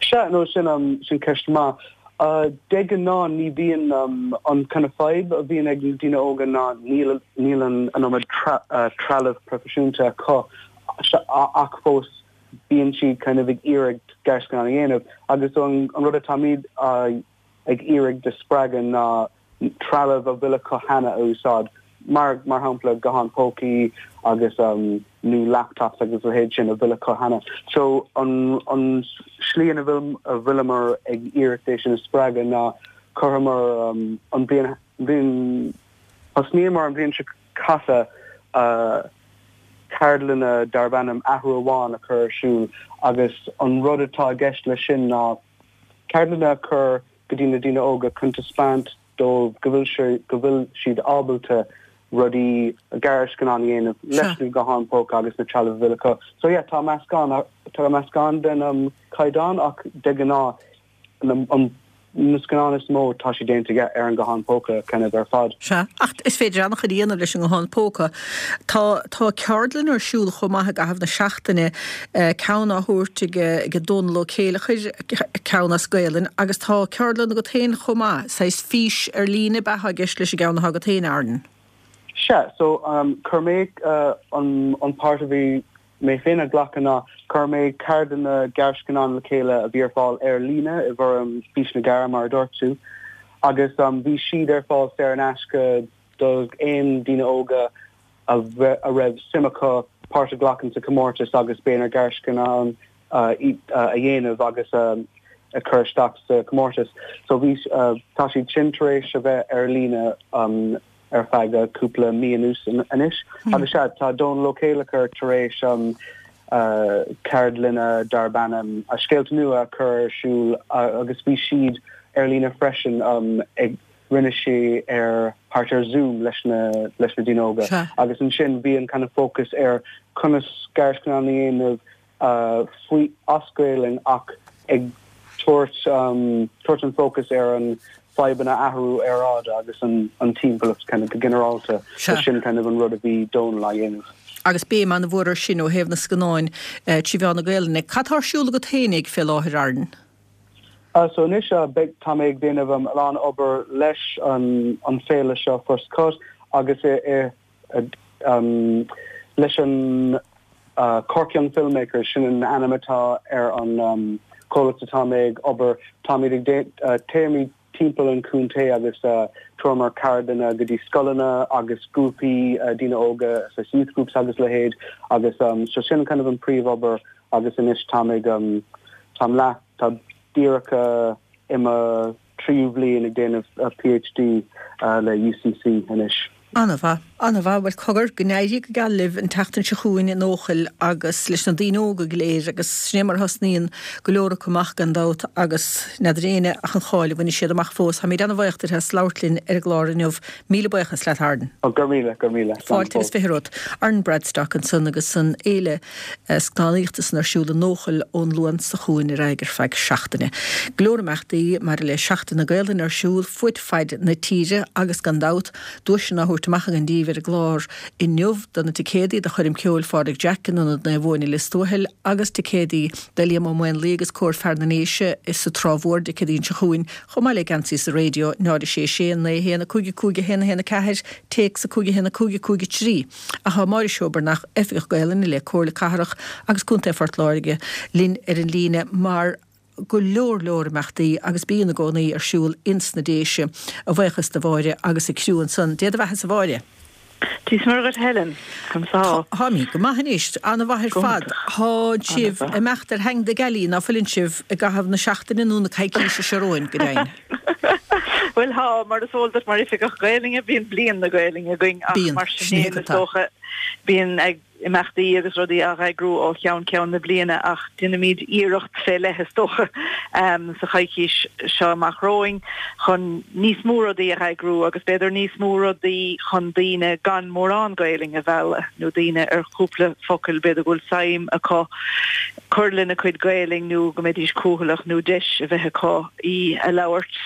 Sea, no sin sin ceist maith. De ghnáth ní bhíonn an kind of fadhb a bhíonn ag na daoine óga ná níl níl an an iomad trealamh proifisiúnta acu ach fós bíonn siad kind of ag iarraidh gearrscannán a dhéanamh agus an rud atáimid ag iarraidh de spreagadh ná trealamh a bhfuil acu cheana a úsáid, mar mar shampla gutháin pócaí agus nó laptops agus a leithéid sin a bhfuil acu cheana. So an an slí ina bhfuil a bhfuileamar ag iarraidh é sin a spreagadh ná chuireamar an bhliain bhliain thosnaíomar an bhliain seo caite ceardlanna darb ainm Athrú Amháin a chur ar siúl agus an rud atá i gceist leis sin ná ceardlanna a chur go dtí na daoine óga chun taispeáint dóibh go bhfuil sé, go bhfuil siad ábalta rudaí, gearrscannán a dhéanamh leis na gutháin póca agus na trealamh a bhfuil acu. So yeah, tá meascán, tá meascán den caighdeán ach de ghnáth an, na scannáin is mó tá siad déanta yeah ar an guthán póca kind of ar fad. Sea, ach is féidir an-chuid a dhéanamh leis an nguthán póca. Tá, tá ceardlann ar siúl chomh maith i gcaitheamh na seachtaine, ceann á thabhairt ag, ag Dónal Ó Céileachair, ceann as Gaelainn, agus tá ceardlann agat féin chomh maith, saghas fís ar líne ab ea atá i gceist leis an gceann atá agat féin, Aaron? Sea, so chuir mé an, an páirt a bhí mé féin a ghlacadh ná chuir mé ceardlanna gearrscannán le chéile a bhí ar fáil ar líne i bhfoirm Fís na gCara mar a dúirt tú agus bhí siad ar fáil saor in aisce do aon daoine óga a raibh suim acu páirt a ghlacadh sa chomórtas agus b'fhéidir gearrscannán a dhéanamh agus a chur isteach sa chomórtas. So bhí tá siad sin tar éis a bheith ar líne ar feadh cúpla mí anuas anois. Agus sea, tá Dónal Ó Céileachair tar éis ceardlanna darb ainm Scéalta Nua a chur ar siúl agus bhí siad ar líne freisin ag rinne sé ar thart ar Zoom leis na leis na daoine óga agus ansin bhí an kind of focus ar conas gearrscannán a dhéanamh faoi as Gaelainn ach ag tabhairt tabhairt an focus ar an fadhbanna athrú aeráide agus an an timpeallacht kind of go ginearálta. So sin kind of an rud a bhí Dónal á dhéanamh. Agus béim an-mhór ar sin ó thaobh na scannáin trí mheán na Gaelainne. Cad tá ar siúl agat féinig fé láthair, Aaron? So anois beidh tá mé ag déanamh a lán obair leis an an féile seo First Cut agus i i leis an Cork Young Filmmakers, sin an ainm atá ar an chomhlacht atá mé ag obair. Táimid ag téimid timpeall an chontae agus tabhraimid ceardlanna go dtí scoileanna agus grúpaí daoine óga, saghas youth groups agus leithéid agus so sin kind of an príomhobair agus anois táim ag táim leath tá díreach i mo tríú bhliain ag déanamh PhD le UCC anois. An-mhaith, an-mhaith. Bhuel, cogar, go n-éirí go geal libh an tseachtain seo chugainn in Eochaill agus leis na daoine óga go léir agus sin é mar a thosnaíonn go leor acu amach gan dabht agus n'fheadar éinne ach an cháil a bhainfidh siad amach fós. Táimid an-bhaoch duit as labhairt linn ar an gclár inniu. Míle buíochas leat, Aaron. Go raibh míle, go raibh míle. Slán Fáilte agus fhiche romhat. Aaron Bradstock ansan agus an fhéile scannánaíochta san ar siúl in Eochaill ón Luan seo chugainn ar aghaidh ar feadh seachtaine. Go leor imeachtaí maidir le Seachtain na Gaelainne ar siúl fud faid na tíre agus gan dabht, duaiseanna á thabhairt amach againn daoibh ar an gclár inniu do na ticéadaí do choirm ceoil Phádraig Jack in Ionad Naomh Eoin i Lios Tuathail agus ticéadaí do Liam Ó Maonlaí agus Cór Fear na nDéise sa Trá Mhór Dé Céadaoin seo chugainn chomh maith le geansaí sa raidió 0 6 6 9 1 5 5 1 1 4 téacs 5 1 5 5 3. Ach tá Máire Seoibearnach, Oifigeach Gaelainne le Comhairle Cathrach agus Contae Phort Láirge, linn ar an líne mar go leor leor imeachtaí agus bíonn i gcónaí ar siúl ins na Déise. A bhuíochas do Mháire agus a criú ansan. Dé do bheathasa a Mháire. Dia is Muire dhuit Helen. Conas tá? Táimid go maith anois. Ana-mhaith ar fad. Tá sibh ag imeacht ar theanga na gealaí, ná fuileann sibh, i gcaitheamh na seachtaine nó na coicíse seo romhainn, go deimhin. Bhuel tá, mar is eol duit mar Oifigeach Gaelainne, bíonn Bliain na Gaelainne againn ach Bíonn, mar sin sin é féin is atá. dócha bíonn ag imeachtaí agus rudaí á n-eagrú ó cheann ceann na bliana ach déanfaimid iarracht fé leith is dócha sa choicís seo amach romhainn chun níos mó rudaí a eagrú agus b'fhéidir níos mó rudaí chun daoine gan mórán Gaelainne a mhealladh nó daoine ar chúpla focal b'fhéidir go bhfuil suim acu cur lena cuid Gaelainn nó go mbeidís cúthaileach nó deis a bheith acu í a labhairt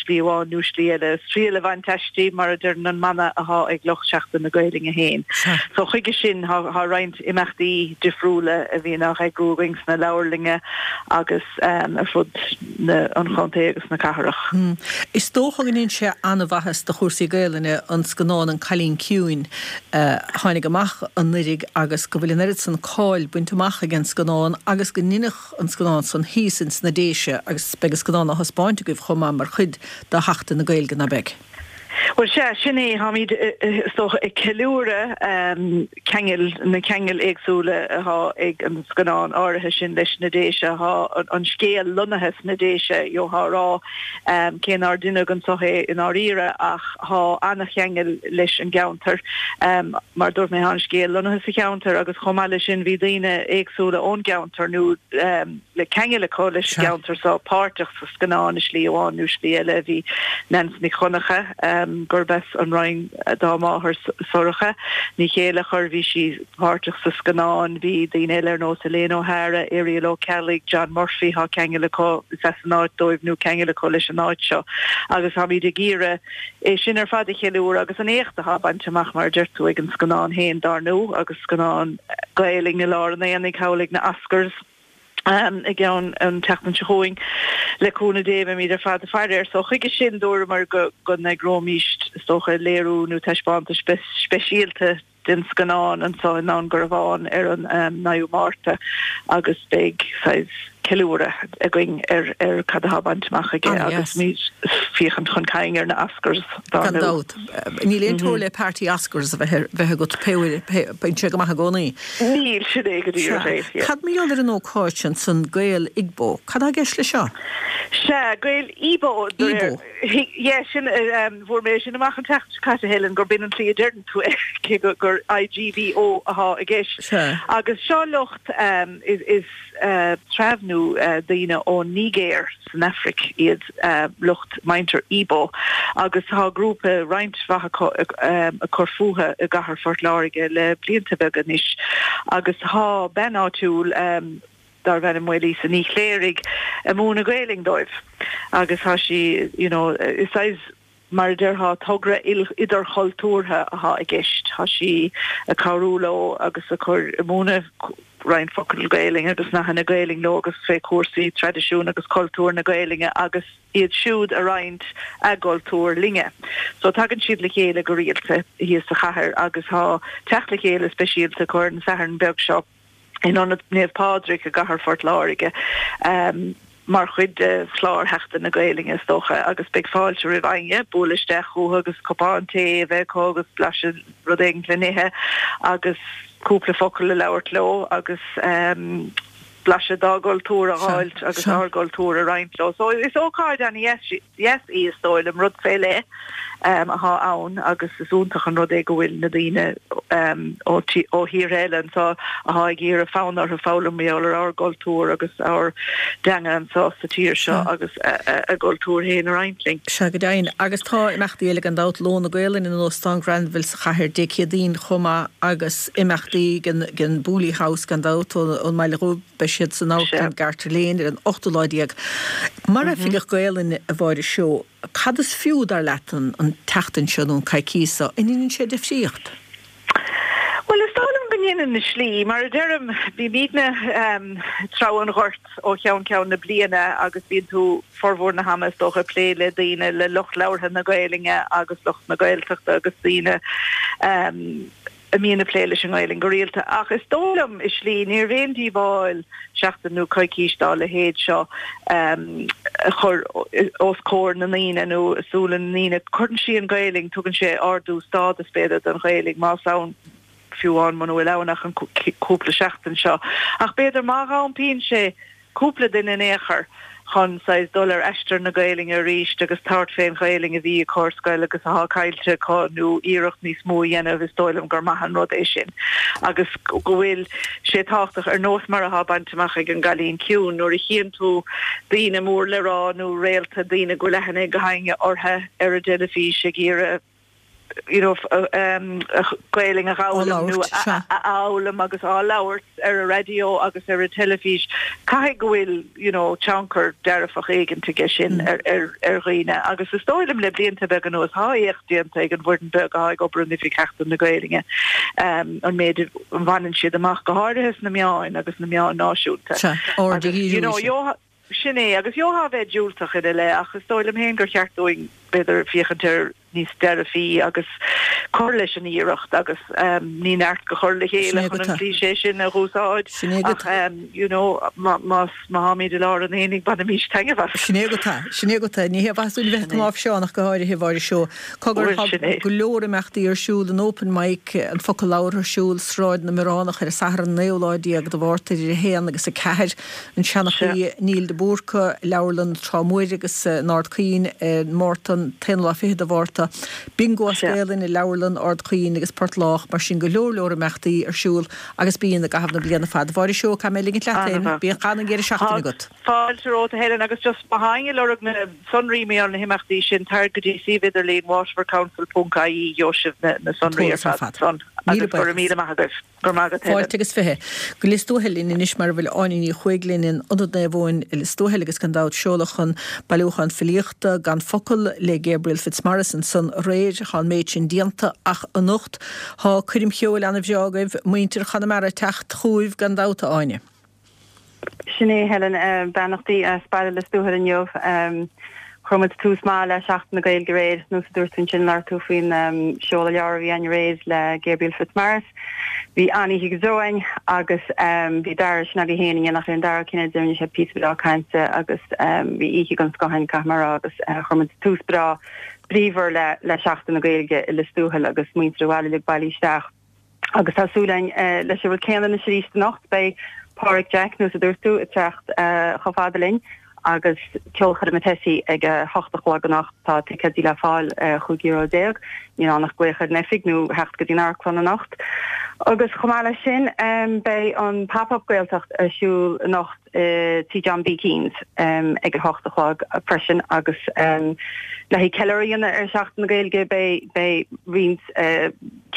slí amháin nó slí eile. Triail a bhaint aisti, mar a deireann an mana athá ag lucht Seachtain na Gaelainne féin. So chuige sin thá roinnt imeachtaí difriúla a bhíonn á n-eagrú againn sna leabharlainne agus ar fud an chontae agus na cathrach. Is dócha go ndéanann sé an-mhaitheas do chúrsaí Gaelainne an scannán An Cailín Ciúin a tháinig amach anuiridh agus go bhfuil an oiread san cáil bainte amach ag an scannán agus go ndeineadh an scannán san thíos ins na Déise agus beidh an scannán á thaispeáint agaibh chomh maith mar chuid de Sheachtain na Gaeilge, ná beidh? Bhuel, sea, sin é. Táimid, is dócha, ag ceiliúradh ceangail, na ceangail éagsúla atá ag an scannán áirithe sin leis na Déise. Tá an scéal lonnaithe sna Déise, gheofá a rá, cé nár deineadh anso é i ndáiríre, ach tá an-cheangal leis an gceantar. Mar a dúirt mé, tá an scéal lonnaithe sa cheantar agus chomh maith leis sin bhí daoine éagsúla ón gceantar nó le ceangal acu leis an gceantar so páirteach sa scannán i slí amháin nó slí eile. Bhí Neans Nic Dhonncha, gurb as an Rinn dá máthair Sorcha Ní Chéilleachair, bhí sí páirteach sa scannán. Bhí daoine eile ar nós Elaine O'Hara, Irial Ó Ceallaigh, John Murphy, tá ceangal acu, is as an áit dóibh nó ceangal acu leis an áit seo agus táimid ag iarraidh é sin ar fad a cheiliúradh agus an éacht atá bainte amach, mar a deir tú, ag an scannán féin dár ndóigh agus scannán Gaelainn i lár an aonaigh thall ag na Oscars i gceann an tseachtain seo chugainn. Le cúnamh Dé beimid ar fad ag faire air. So chuige sin dúramar go go n-eagróimís is dócha léiriú nó taispeántas speisialta den scannán anso i nDún Garbhán ar an 9ú Márta agus beidh saghas ceiliúradh againn ar ar cad atá bainte amach aige agus muid féachaint chun cinn ar na Oscars dár Gan dabht. Níl aon teora le party Oscars a bheith bheith agat pé uair pé bíonn sé go maith i gcónaí. Níl, sin é go díreach é, yeah. Cad mar gheall ar an ócáid sin san Gael Igbo? Cad tá i gceist leis seo? Sea, Gael Ibo, de réir. Ibo. Yeah, sin, fuair mé sin amach an tseachtain seo caite, Helen, gurb in an tslí a deireann tú é, cé gur IGBO athá i gceist. Sea. Agus seo lucht, is treabh nó daoine ón Nigéir san Afraic iad lucht muintir Ibo, agus tá grúpa, roinnt mhaith acu, ag cur fúthu i gcathair Phort Láirge le blianta beaga anois. Agus tá bean áitiúil, darbh ainm Maolíosa Ní Chléirigh, ag múineadh Gaelainn dóibh agus tá sí, you know, is saghas, mar a déarfá, togra idirchultúrtha athá i gceist. Tá sí ag cabhrú leo agus ag cur, ag múineadh roinnt focal Gaelainn agus nathanna Gaelainn leo agus fé chúrsaí traidisiún agus cultúr na Gaelainne agus iad siúd a roinnt a gcultúr linne. So tagann siad le chéile go rialta thíos sa chathair agus tá teacht le chéile speisialta acu ar an Satharn beag seo. in Ionad Naomh Pádraig i gcathair Phort Láirge mar chuid de chlár Sheachtain na Gaelainne is dócha agus beidh fáilte roimh éinne bualadh isteach chucu agus cupán tae a bheith acu agus blaiseadh rud éigin le n-ithe agus cúpla focal a labhairt leo agus blaiseadh dá gcultúr a dh'fháilt agus ár gcultúr a roinnt leo. So is ócáid an-dheas dheas í, is dóigh liom, rud fé leith athá ann agus is iontach an rud é go bhfuil na daoine ó thíortha eile anso athá ag iarraidh fonn orthu foghlaim mar gheall ar ár gcultúr agus ár dteanga anso sa tír seo agus a gcultúr féin a roinnt linn. Sea, go deimhin. Agus tá imeachtaí eile gan dabht, Lón na Gaolainne in Óstán Granville sa chathair Dé Céadaoin chomh maith agus imeachtaí den Booley House gan dabht ón mBaile Dhubh. Beidh siad san Amharclann Garter Lane ar an ochtú lá déag. Mar Oifigeach Gaelainne, a Mháire Seoighe, cad is fiú, dar leat, an tseachtain seo nó an coicís seo? An ndeineann sé difríocht? Bhuel, is dóigh liom go ndeineann i slí. Mar a deirim, bímidne ag treabhadh an ghoirt ó cheann ceann na bliana agus bíonn tú formhór na hama is dócha ag plé le daoine, le lucht labhartha na Gaelainne agus lucht na Gaeltachta agus daoine a mbíonn ag plé leis an nGaelainn go rialta, ach is dóigh liom, i slí, níorbh aon díobháil seachtain nó coicís dá leithéid seo a chur os comhair na ndaoine nó i súile na ndaoine. Cuireann sí an Ghaelainn, tugann sé ardú stádas, b'fhéidir, don Ghaelainn, más ann, fiú amháin muna bhfuil ann ach an cúpla seachtain seo. Ach b'fhéidir má dh'iompaíonn sé cúpla duine in aon chor. chun saghas dul ar aistear na Gaelainne arís agus tabhairt fén Ghaelainn a bhí acu ar scoil agus athá caillte acu nó iarracht níos mó a dhéanamh, is dóigh liom gur maith an rud é sin agus go bhfuil sé tábhachtach ar nós mar athá bainte amach ag an gCailín Ciúin nuair a chíonn tú daoine mór le rá nó réalta, daoine go bhfuil aithne ag gach éinne orthu ar an dteilifís ag iarraidh you know Gaelainn a dh'fhoghlaim nó a fhoghlaim agus á labhairt ar an raidió agus ar an teilifís, caithfidh go bhfuil you know tionchar dearfach éigint aige sin ar ar ar dhaoine agus is dóigh liom le blianta beaga anuas thá éacht déanta ag an bhfoireann beag athá ag obair in Oifig Sheachtain na Gaelainne an méid a bhaineann siad amach go háirithe sna meáin agus na meáin náisiúnta. Sea, aird a dhíriú you know, Sin é, agus gheofá a bheith diúltach ina leith, ach is dóigh liom féin gur cheart dúinn, b'fhéidir, féachaint air níos dearfaí agus cur leis an iarracht agus ní neart go chur le chéile chun an cliché sin a dh'úsáid ach you know má má tháimid i lár an aonaigh bainimís taitneamh as. Sin é agat é, sin é agat é. Ní hé mhaith dúinn a bheith cnáimhseánach go háirithe, a Mháire Seó. Cogar, tá go leor imeachtaí ar siúl, an Open Mic, an Focal Labhartha ar siúl, Sráid na mBioránach ar an Satharn an naoú lá déag de Mhárta idir 1 agus 4. An Seanchaí Neil de Búrca, Leabharlann Trá Mhuir agus in Ard Caoin i Márta, an t-aonú lá fichead de Mhárta, Bingo as Gaelainn i Leabharlann Ard Caoin agus Port Lách, mar sin go leor leor imeachtaí ar siúl agus bíonn i gcaitheamh na bliana fad. A Mháire Seoighe, caithfidh mé ligint leat féin. Bíodh an-deireadh seachtaine agat. Fáilte romhat a Helen agus just má tá éinne ag lorg na sonraí mar gheall ar na himeachtaí sin, tar go dtí suíomh idirlín waterfordcouncil ponc ie gheobhaidh sibh na sonraí ar fad ansan agus go raibh míle maith agaibh. Go raibh maith agat, Helen. Fáilte agus 20. Go Lios Tuathail linn anois mar a bhfuil Áine Ní Chuaig linn in Ionad Naomh Eoin i Lios Tuathail agus gan dabht seoladh an bailiúchán filíochta Gan Focal le Gabriel Fitzmaurice ansan aréir. Tá an méid sin déanta ach anocht tá coirm cheoil ana-bhreá agaibh, muintir Chonamara ag teacht chugaibh gan dabht, a Áine. Sin é, Helen. Beannachtaí as baile Lios Tuathail inniu. Chuir muid tús maith le Seachtain na Gaeilge aréir, nós a dúirt tú ansin, labhair tú faoin seoladh leabhair a bhí againn aréir le Gabriel Fitzmaurice. Bhí an-oíche go deo againn agus bhí Dara, sin agaibh féin, in éineacht le Dara Ó Cinnéide, rinne sé píosa breá cainte agus bhí oíche den scoth againn, caithfidh mé a rá, agus chuir muid tús breá bríomhar le Seachtain na Gaeilge i Lios Tuathail agus muintir an bhaile uilig bailithe isteach. Agus tá súil againn leis an rud céanna anois arís anocht. Beidh Páraic Jack, nós a dúirt tú, ag teacht chomh fada linn agus ceolchoirm Tessie ag a hocht a chlog anocht. Tá ticéidí le fáil ar chúig euro déag. Níl ann ach glaoch ar an oifig nó theacht go dtí an amharclann anocht. Agus chomh maith leis sin, beidh an Pop Up Gaeltacht ar siúl anocht. i Tí John B. Keane's ag a hocht a chlog freisin agus le haghaidh ceiliúradh a dhéanamh ar Sheachtain na Gaeilge beidh beidh roinnt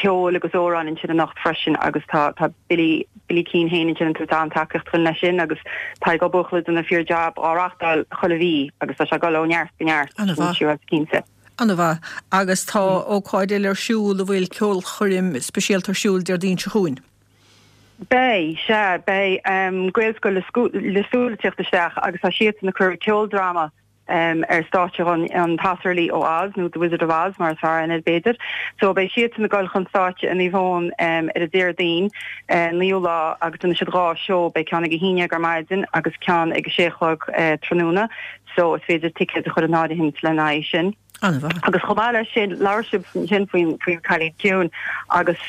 ceoil agus amhráin ansin anocht freisin agus tá tá Billy Billy Keane féin ansin ag tabhairt an-tacaíocht dúinn leis sin agus Tadhg Ó Buachalla ag déanamh fíor jab á reachtáil chuile mhí agus tá sé ag dul ó neart go neart Ana-mhaith. Cinnte. Ana-mhaith. Agus tá ócáid eile ar siúl a bhfuil ceolchoirm speisialta ar siúl Déardaoin seo chugainn. Beidh, sea, beidh Gaelscoil Lios Tuathail ag tíocht isteach agus tá siadsan ag cur ceoldráma ar stáitse dhúinn, An tAsarlaí ó Oz, nó The Wizard of Oz mar is fearr aithne air b'fhéidir. So beidh siadsan ag dul chun stáitse i Naomh Eoin ar an Déardaoin, 9ú lá agus déanfaidh siad dhá seó, beidh ceann ag a haon dhéag ar maidin agus ceann ag a sé a chlog tráthnóna. So is féidir ticéid a chur in áirithint lena aghaidh sin. An-mhaith. Agus chomh maith leis sin, labhair sibh ansin faoin faoin Cailín Ciúin agus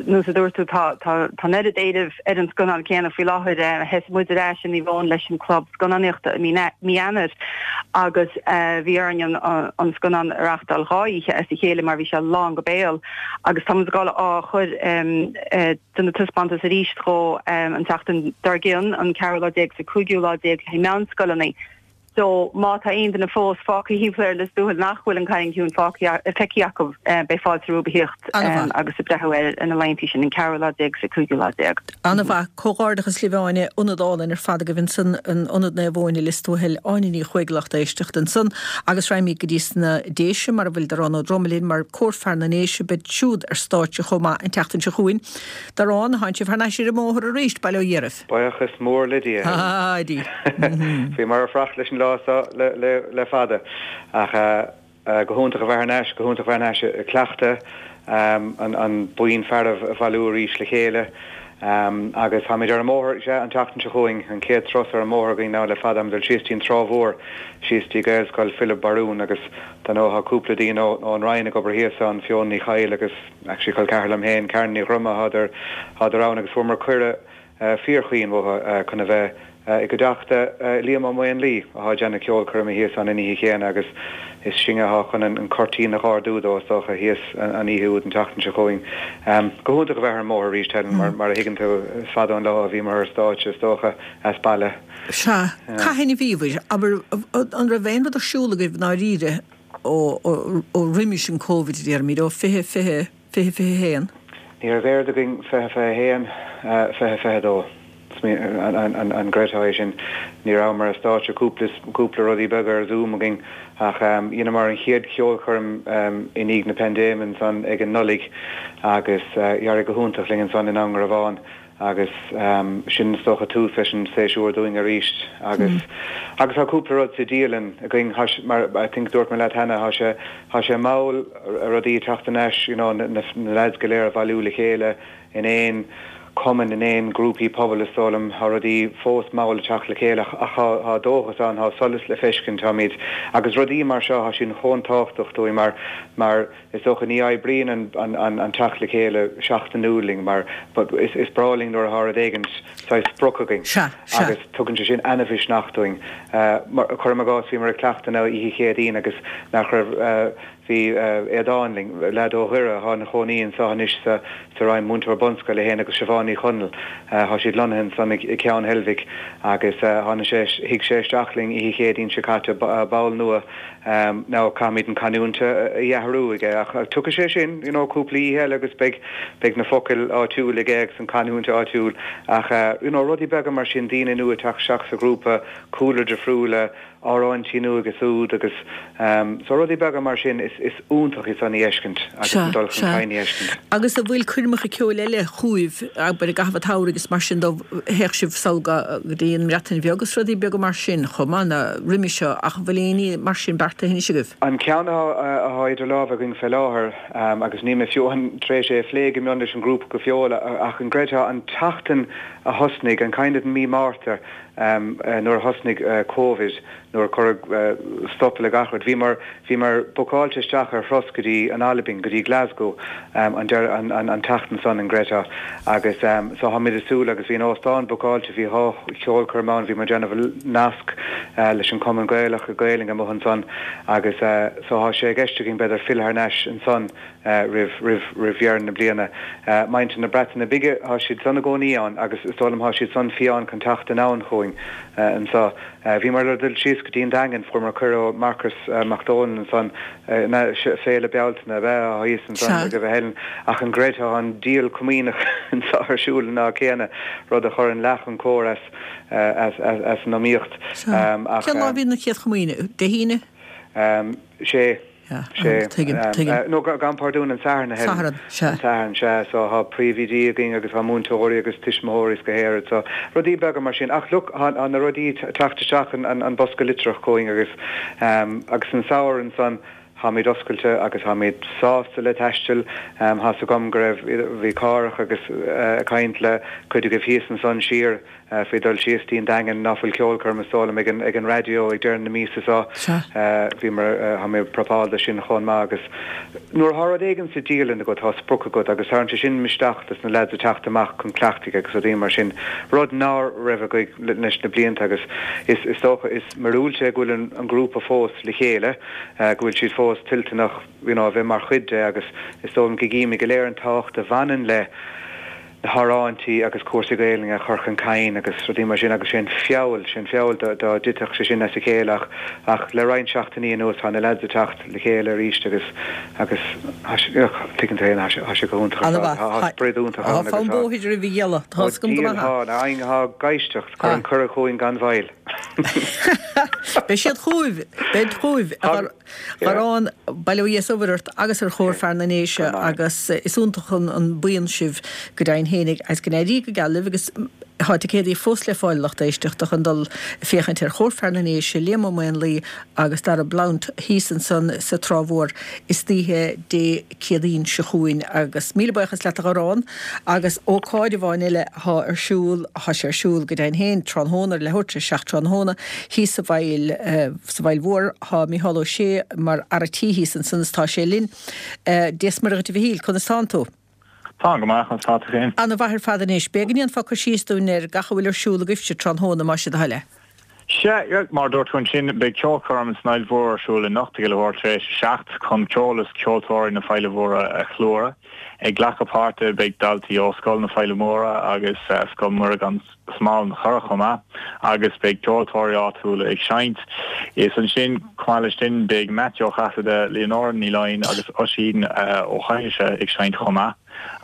nós a dúirt tú tá tá tá an oiread éilimh ar an scannán céanna faoi láthair. Sheas muid ar ais i Naomh Eoin leis an club scannánaíochta i mí mí Eanáir agus bhí orainn an an scannán a reachtáil dhá oíche as a chéile mar bhí sé lán go béal agus tá muid ag dul á chur déanamh taispeántas arís dhó an tseachtain dár gcionn, an ceathrú lá déag is an cúigiú lá déag le haghaidh meánscoileanna. So, má tá aon duine fós fágtha thimpeall ar Lios Tuathail nach bhfuil An Cailín Ciúin fágtha, feicthe acu, beidh fáilte rompu a thíocht agus ag breathnú air ar na laethanta sin, an ceathrú lá déag is an cúigiú lá déag. An-mhaith. Comhghairdeachas libh Áine. Ionad álainn ar fad agaibh ansan in Ionad Naomh Eoin i Lios Tuathail. Áine Ní Chuaig lucht éisteachta ansan. Agus raghaimid go dtí sna Déise mar a bhfuil Darán Ó Droma linn mar Cór Fear na nDéise beid siúd ar stáitse chomh maith an tseachtain seo chugainn. Darán, thánn sibh thar n-ais ar an mbóthar arís, bail ó Dhia oraibh. Buíochas mór le Dia, Helen. Bhíomar ag fanacht leis an lá seo le fada. Ach go hiontach a bheith thar n-ais, go hiontach a bheith thar n-ais ag cleachtadh, an buíon fearaibh a bhailiú arís le chéile. Agus táimid ar an mbóthar, sea, an tseachtain seo chugainn, an chéad turas ar an mbóthar againn now le fada. Táimid ag dul síos dtí an Trá Mhór, síos dtí Gaelscoil Philib Barún agus dar ndóigh tá cúpla daoine ón Roinn ag obair thíos ann, Fiona Ní Chadhail agus actually col ceathar liom féin, Karen Ní Dhroma, thádar ann agus fuaireamar cuireadh fíorchaoin uathu chun a bheith. I gcuideachta Liam Ó Maonlaí atá ag déanamh ceolchoirme thíos ann an oíche chéanna agus is sinne atá chun an cuirtín a dh'ardú dó, is dócha, thíos an oíche úd an tseachtain seo chugainn. Go hiontach a bheith ar an mbóthar arís, Helen, mar a thuigeann tú, is fada an lá ó bhíomar ar stáitse, is dócha, as baile. Sea. Cathain a bhíobhair? Abair, an raibh aon rud ar siúl agaibh i ndáiríre ó roimis an Covid, a déarfaimid, ó 2020, 2021? Ní raibh aon rud againn 2021, 2022. An gcreidfeá é sin? Ní rabhamar ar stáitse, cúpla, cúpla rudaí beaga ar Zoom againn ach dheineamar an chéad cheolchoirm i ndiaidh na paindéime ansan ag an Nollaig agus d'éirigh go hiontach linn ansan in Indreabhán agus sin is dócha tús leis an séasúr dúinn arís agus agus tá cúpla rud sa dialann againn tá sé mar I think dúirt mé leat cheana tá sé tá sé mall rudaí ag teacht thar n-ais you know na na lads go léir a bhailiú le chéile in aon cumann in aon grúpaí pobail is dóigh liom tá rudaí fós mall ag teacht le chéile ach ach tá tá dóchas ann tá solas le feiscint táimid agus rudaí mar seo tá siad chomh tábhachtach dúinn mar mar Is dócha ní oibríonn an teacht le chéile seachtainiúil linn mar is breá linn nuair atá rud éigin saghas sprioc againn agus tugann sé sin ana-mhisneach dúinn. Cuirim i gcás, bhíomar ag cleachtadh an oíche Chéadaoin agus nach raibh, bhí Aodán linn, leaid ó Dhoire atá ina chónaí anseo anois sa Rinn, múinteoir bunscoile é féin agus Siobhán Ní Chonaill, tá siad lonnaithe ansan i gCeann Heilbhic agus tháinig sé, shuigh sé isteach linn oíche Chéadaoin seo caite, ball nua. Now caithfimid an canúint a athrú aige ach tiocfaidh sé sin, you know, cúpla oíche eile agus beidh, beidh na focail áitiúil aige agus an canúint áitiúil ach you know, rudaí beaga mar sin, daoine nua ag teacht isteach sa ghrúpa, cúlra difriúla, amhráintí nua agus úd agus so rudaí beaga mar sin is, is iontach é san a fheiscint agus an dul chun cinn a fheiscint. Agus an bhfuil coirmeacha ceoil eile chugaibh, abair i gcaitheamh an tsamhraidh agus mar sin de, théadh sibh sall go dtí an mBreatain Bheag agus rudaí beaga mar sin chomh maith ná roimhe seo ach an bhfuil aon ní mar sin beartaithe anois agaibh? An ceann atá idir lámha againn fé láthair, agus níl mé fiú tar éis é a phlé go mion leis an ngrúpa go fóill, ach an gcreidfeá an tseachtain a thosnaigh, an kind of mí Márta, nuair a thosnaigh Covid, nuair a cuireadh stop le gach rud, bhíomar, bhíomar bookáilte isteach ar thuras go dtí an Albain, go dtí Glasgow, an deireadh, an, an tseachtain san, an gcreidfeá. Agus so táimid ag súil agus bhí an óstán bookáilte, bhí dhá cheolchoirm ann, bhíomar ag déanamh nasc leis an Cumann Gaelach, Gaelainn amuigh ansan agus so tá sé i gceist againn b'fhéidir filleadh thar n-ais ansan roimh, roimh, roimh dheireadh na bliana. Muintir na Breataine Bige, tá siad san i gcónaí ann agus is dóigh liom tá siad san fiáin chun teacht anonn chugainn anso. Bhíomar le dul síos go dtí an Daingean, fuaireamar cuireadh ó Marcus Mac Dónaill ansan, na, Féile Bealtaine ab ea atá thíos ansan agaibh a Helen, ach an gcreidfeá tá an díol comaoineach anso ar siúl an lá céanna, rud a chuireann leath an cór as, as, as, as an iomaíocht. Ach. Cén lá a bhíonn an chéad chomaoine? Dé hAoine? Sé. Sea, tuigim, tuigim. Nó gabhaim pardún, an Satharn, a Helen. Satharn, sea. An Satharn, sea. So tá príomhoidí againn agus tá múinteoirí agus tuismitheoirí is go háirid. So rudaí beaga mar sin. Ach look, tá na rudaí ag teacht isteach an bosca litreach chugainn agus agus an samhradh ansan táimid oscailte agus táimid sásta le taisteal. Tá's agam go raibh, bhí Cárthach agus ag caint le cuid agaibh thíos ansan siar faoi dul síos dtí an Daingean, ná fuil ceolchoirm is dóigh liom ag an ag an raidió ag deireadh na míosa seo. Bhíomar, tá mé ag prapáil do sin chomh maith agus nuair atá rud éigin sa dialann agat tá sprioc agat agus tagann sé sin misneach dos na lads ag teacht amach chun cleachtaidh agus rudaí mar sin, rud ná raibh againn leis na blianta agus is is dócha is míorúilt é go bhfuil an an grúpa fós le chéile, go bhfuil siad fós toilteanach you know a bheith mar chuid de agus is dóigh liom go gcímid go léir an tábhacht a bhaineann le na hamhráintí agus cúrsaí Gaelainne a chur chun cinn agus rudaí mar sin agus sé'n feall, sé'n feall dá dtitfeadh sé sin as a chéile ach, ach le roinnt seachtainí anuas tá na leaids ag teacht le chéile arís agus, agus tá sé, tuigeann tú féin, tá sé, tá sé go hiontach ar fad, tá, tá sprid iontach ann agus tá. Tá fonn bóthair roimh a ghealladh, tá 'fhios agam go maith. Ó tá, tá ag éisteacht, cuir an cuireadh chugainn gan mhoill. Beidh siad chugaibh, beid chugaibh. Gharrán, bail ó Dhia is a ort agus ar Chór Fear na nDéise agus is iontach an buíon sibh go deimhin fhéinig agus go n-éirí go geal libh agus tá ticéadaí fós le fáil a lucht éisteachta chun dul ag féachaint ar Chór Fear na nDéise, Liam Ó Maonlaí agus Dara Blount thíos ansan sa Trá Mhór istoíche Dé Céadaoin seo chugainn agus míle buíochas leat a Gharrán agus ócáid amháin eile athá ar siúl, athá sé ar siúl go deimhin féin tráthnóna ar leathuair tar éis 7 tráthnóna thíos sa bhFaill. Sa bhFaill Mhór tá Micheál Ó Sé mar fhear a' tí thíos ansan is tá sé linn. Dia 's Muire dhuit a Mhichíl, conas tánn tú? Táim go maith, conas tá tú féin? Ana mhaith ar fad anois. B'fhéidir go ndéanfá cur síos dúinn ar gach a bhfuil ar siúl agaibhse tráthnóna, más é do thoil é. Sea, mar a dúirt tú ansin, beidh ceolchoirm san Fhaill Mhór ar siúl anocht ag leathuair tar éis a 7 chun ceol is ceoltóirí na Faille Móire a cheiliúradh. Ag glacadh páirte beidh daltaí ó Scoil na Faille Móire agus Scoil Mhuire gan Smál an Churrach chomh maith agus beidh ceoltóirí áitiúla ag seinnt. Is ansin, chomh maith leis sin, beidh Matthew Ó Casaide, Leonora Ní Laighin agus Oisín Ó hAinise ag seinnt chomh maith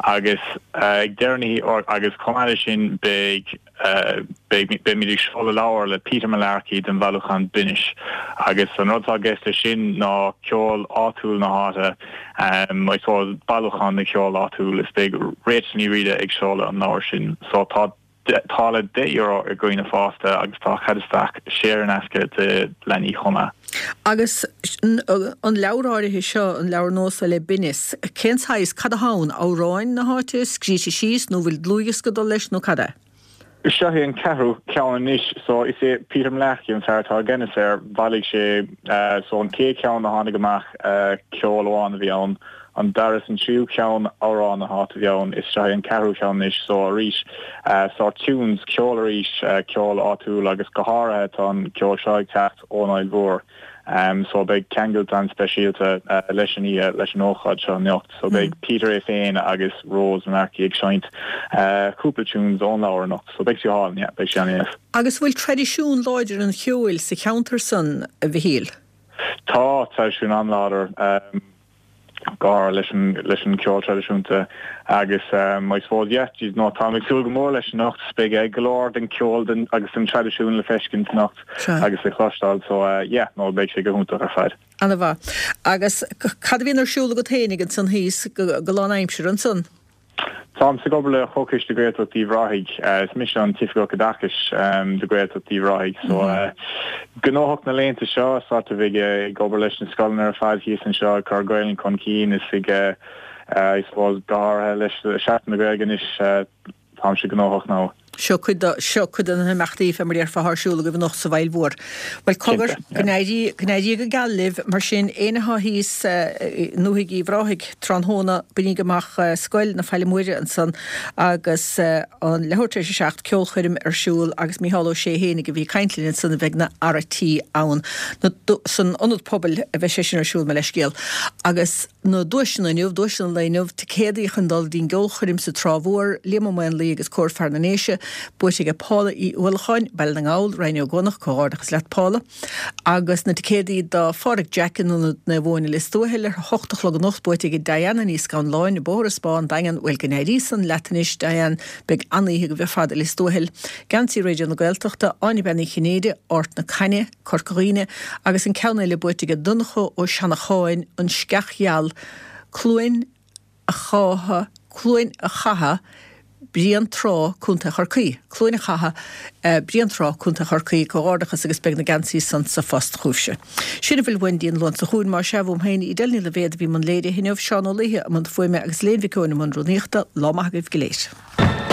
agus ag deireadh na hoíche agus chomh maith leis sin beidh Beidh, beimid ag seoladh leabhar le Peter Mullarkey den bhailiúchán Binnis agus an rud atá i gceist leis sin ná ceol áitiúil na háite, I suppose bailiúchán de cheol áitiúil is beidh Rachel Ní Riada ag seoladh an leabhair sin. So tá táille €10 ag dhaoine fásta agus tá cead isteach saor in aisce do leanaí chomh maith. Agus an leabhar áirithe seo, an leabhar nua seo le Binneas, cén saghas, cad atá ann? Amhráin na háite, scríte síos nó bhfuil dlúthdhiosca ag dul leis nó cad é? Seo é an ceathrú ceann anois. So is é Peter Mullarkey an fear atá i gceannas air. Bhailigh sé, so an chéad cheann a tháinig amach, ceol amháin a bhí ann. An dara is an tríú ceann, amhráin na háite a bhí ann. Is seo é an ceathrú ceann anois. So arís, sort tunes, ceol arís, ceol áitiúil agus go háirithe tá an ceol seo ag teacht ón Fhaill Mhór. So beidh ceangailt an-speisialta leis an oíche, leis an ócáid seo anocht. So beidh Peter é féin agus Rose Mullarkey ag seinnt cúpla tunes ón leabhar anocht. So beidh sé álainn, yeah, beidh sé an-deas. Agus bhfuil traidisiún láidir an cheoil sa cheantar san, a Mhichíl? Tá traidisiún an-láidir. gar leis an leis an ceol traidisiúnta agus I suppose yeah geez no táim ag súil go mór leis anocht beidh go leor den ceol den agus den traidisiún le feiscint anocht agus le cloisteáil so yeah no beidh sé go hiontach ar fad. Ana mhaith. Agus cad a bhíonn ar siúl agat fhéinig ansan thíos go lán aimsire ansan? Táimse ag obair le Comhchoiste Gaeltacht Uíbh Ráthaigh. Is mise an tOifigeach Oideachais do Ghaeltacht Uíbh Ráthaigh. So gnóthach na laethanta seo, sort of ag obair leis na scoileanna ar fad thíos anseo, ag cur Gaelainn chun cinn is ag, I suppose, go háirithe leis Seachtain na Gaeilge anois, táimse gnóthach now. Seo cuid de, seo cuid de na himeachtaí, fé mar a déarfá, atá ar siúl agaibh anocht sa bhFaill Mhór. Bhuel, cogar, go n-éirí, go n-éirí go geal libh, mar sin, éinne atá thíos i ndúthaigh Uíbh Ráthaigh tráthnóna, bainíg amach Scoil na Faille Móire ansan agus an leathuair tar éis a 7, ceolchoirm ar siúl agus Mícheál Ó Sé fhéinig a bhí ag caint linn ansan a bheidh ina fhear a' tí ann. Na, san Ionad Pobail a bheidh sé sin ar siúl, mo leithscéal. Agus. Na duaiseanna inniu, duaiseanna an lae inniu, ticéadaí chun dul dtí'n gceolchoirm sa Trá Mhór, Liam Ó Maonlaí agus Cór Fear na nDéise, buaite aige Paula Uí Uallacháin, Baile na nGall, Rinn Ó gCuanach, comhghairdeachas leat Paula. Agus na ticéadaí do Phádraig Jack in Ionad Naomh Eoin i Lios Tuathail ar a hocht a chlog anocht, buaite aige Diana Ní Scanláin, Bóthar an Spá, An Daingean, bhuel go n-éirí san leat anois Diane, beidh an-oíche agaibh ar fad i Lios Tuathail. Geansaí Raidió na Gaeltachta, Áine Bean Uí Chinnéide, Ard na Cainne, Corca Dhuibhne, agus an ceann eile buaite aige Donncha Ó Seanacháin, An Sceach Gheal, Cluain a' Chátha, Cluain a' Chatha, Bréantrá, Co. Chorcaí. Cluain a' Chatha, Bréantrá, Co. Chorcaí. Comhghairdeachas agus beidh na geansaí san sa phost chugaibhse. Sin a bhfuil uainn dtí'n Luan seo chugainn, más ea, uaim féin, Edel Ní Loibhéad a bhí i mbun léirithe inniu, Seán Ó Laoithe i mbun fuaime agus Elaine Mhic Eoin i mbun rúnaíochta. Lá maith agaibh go léir.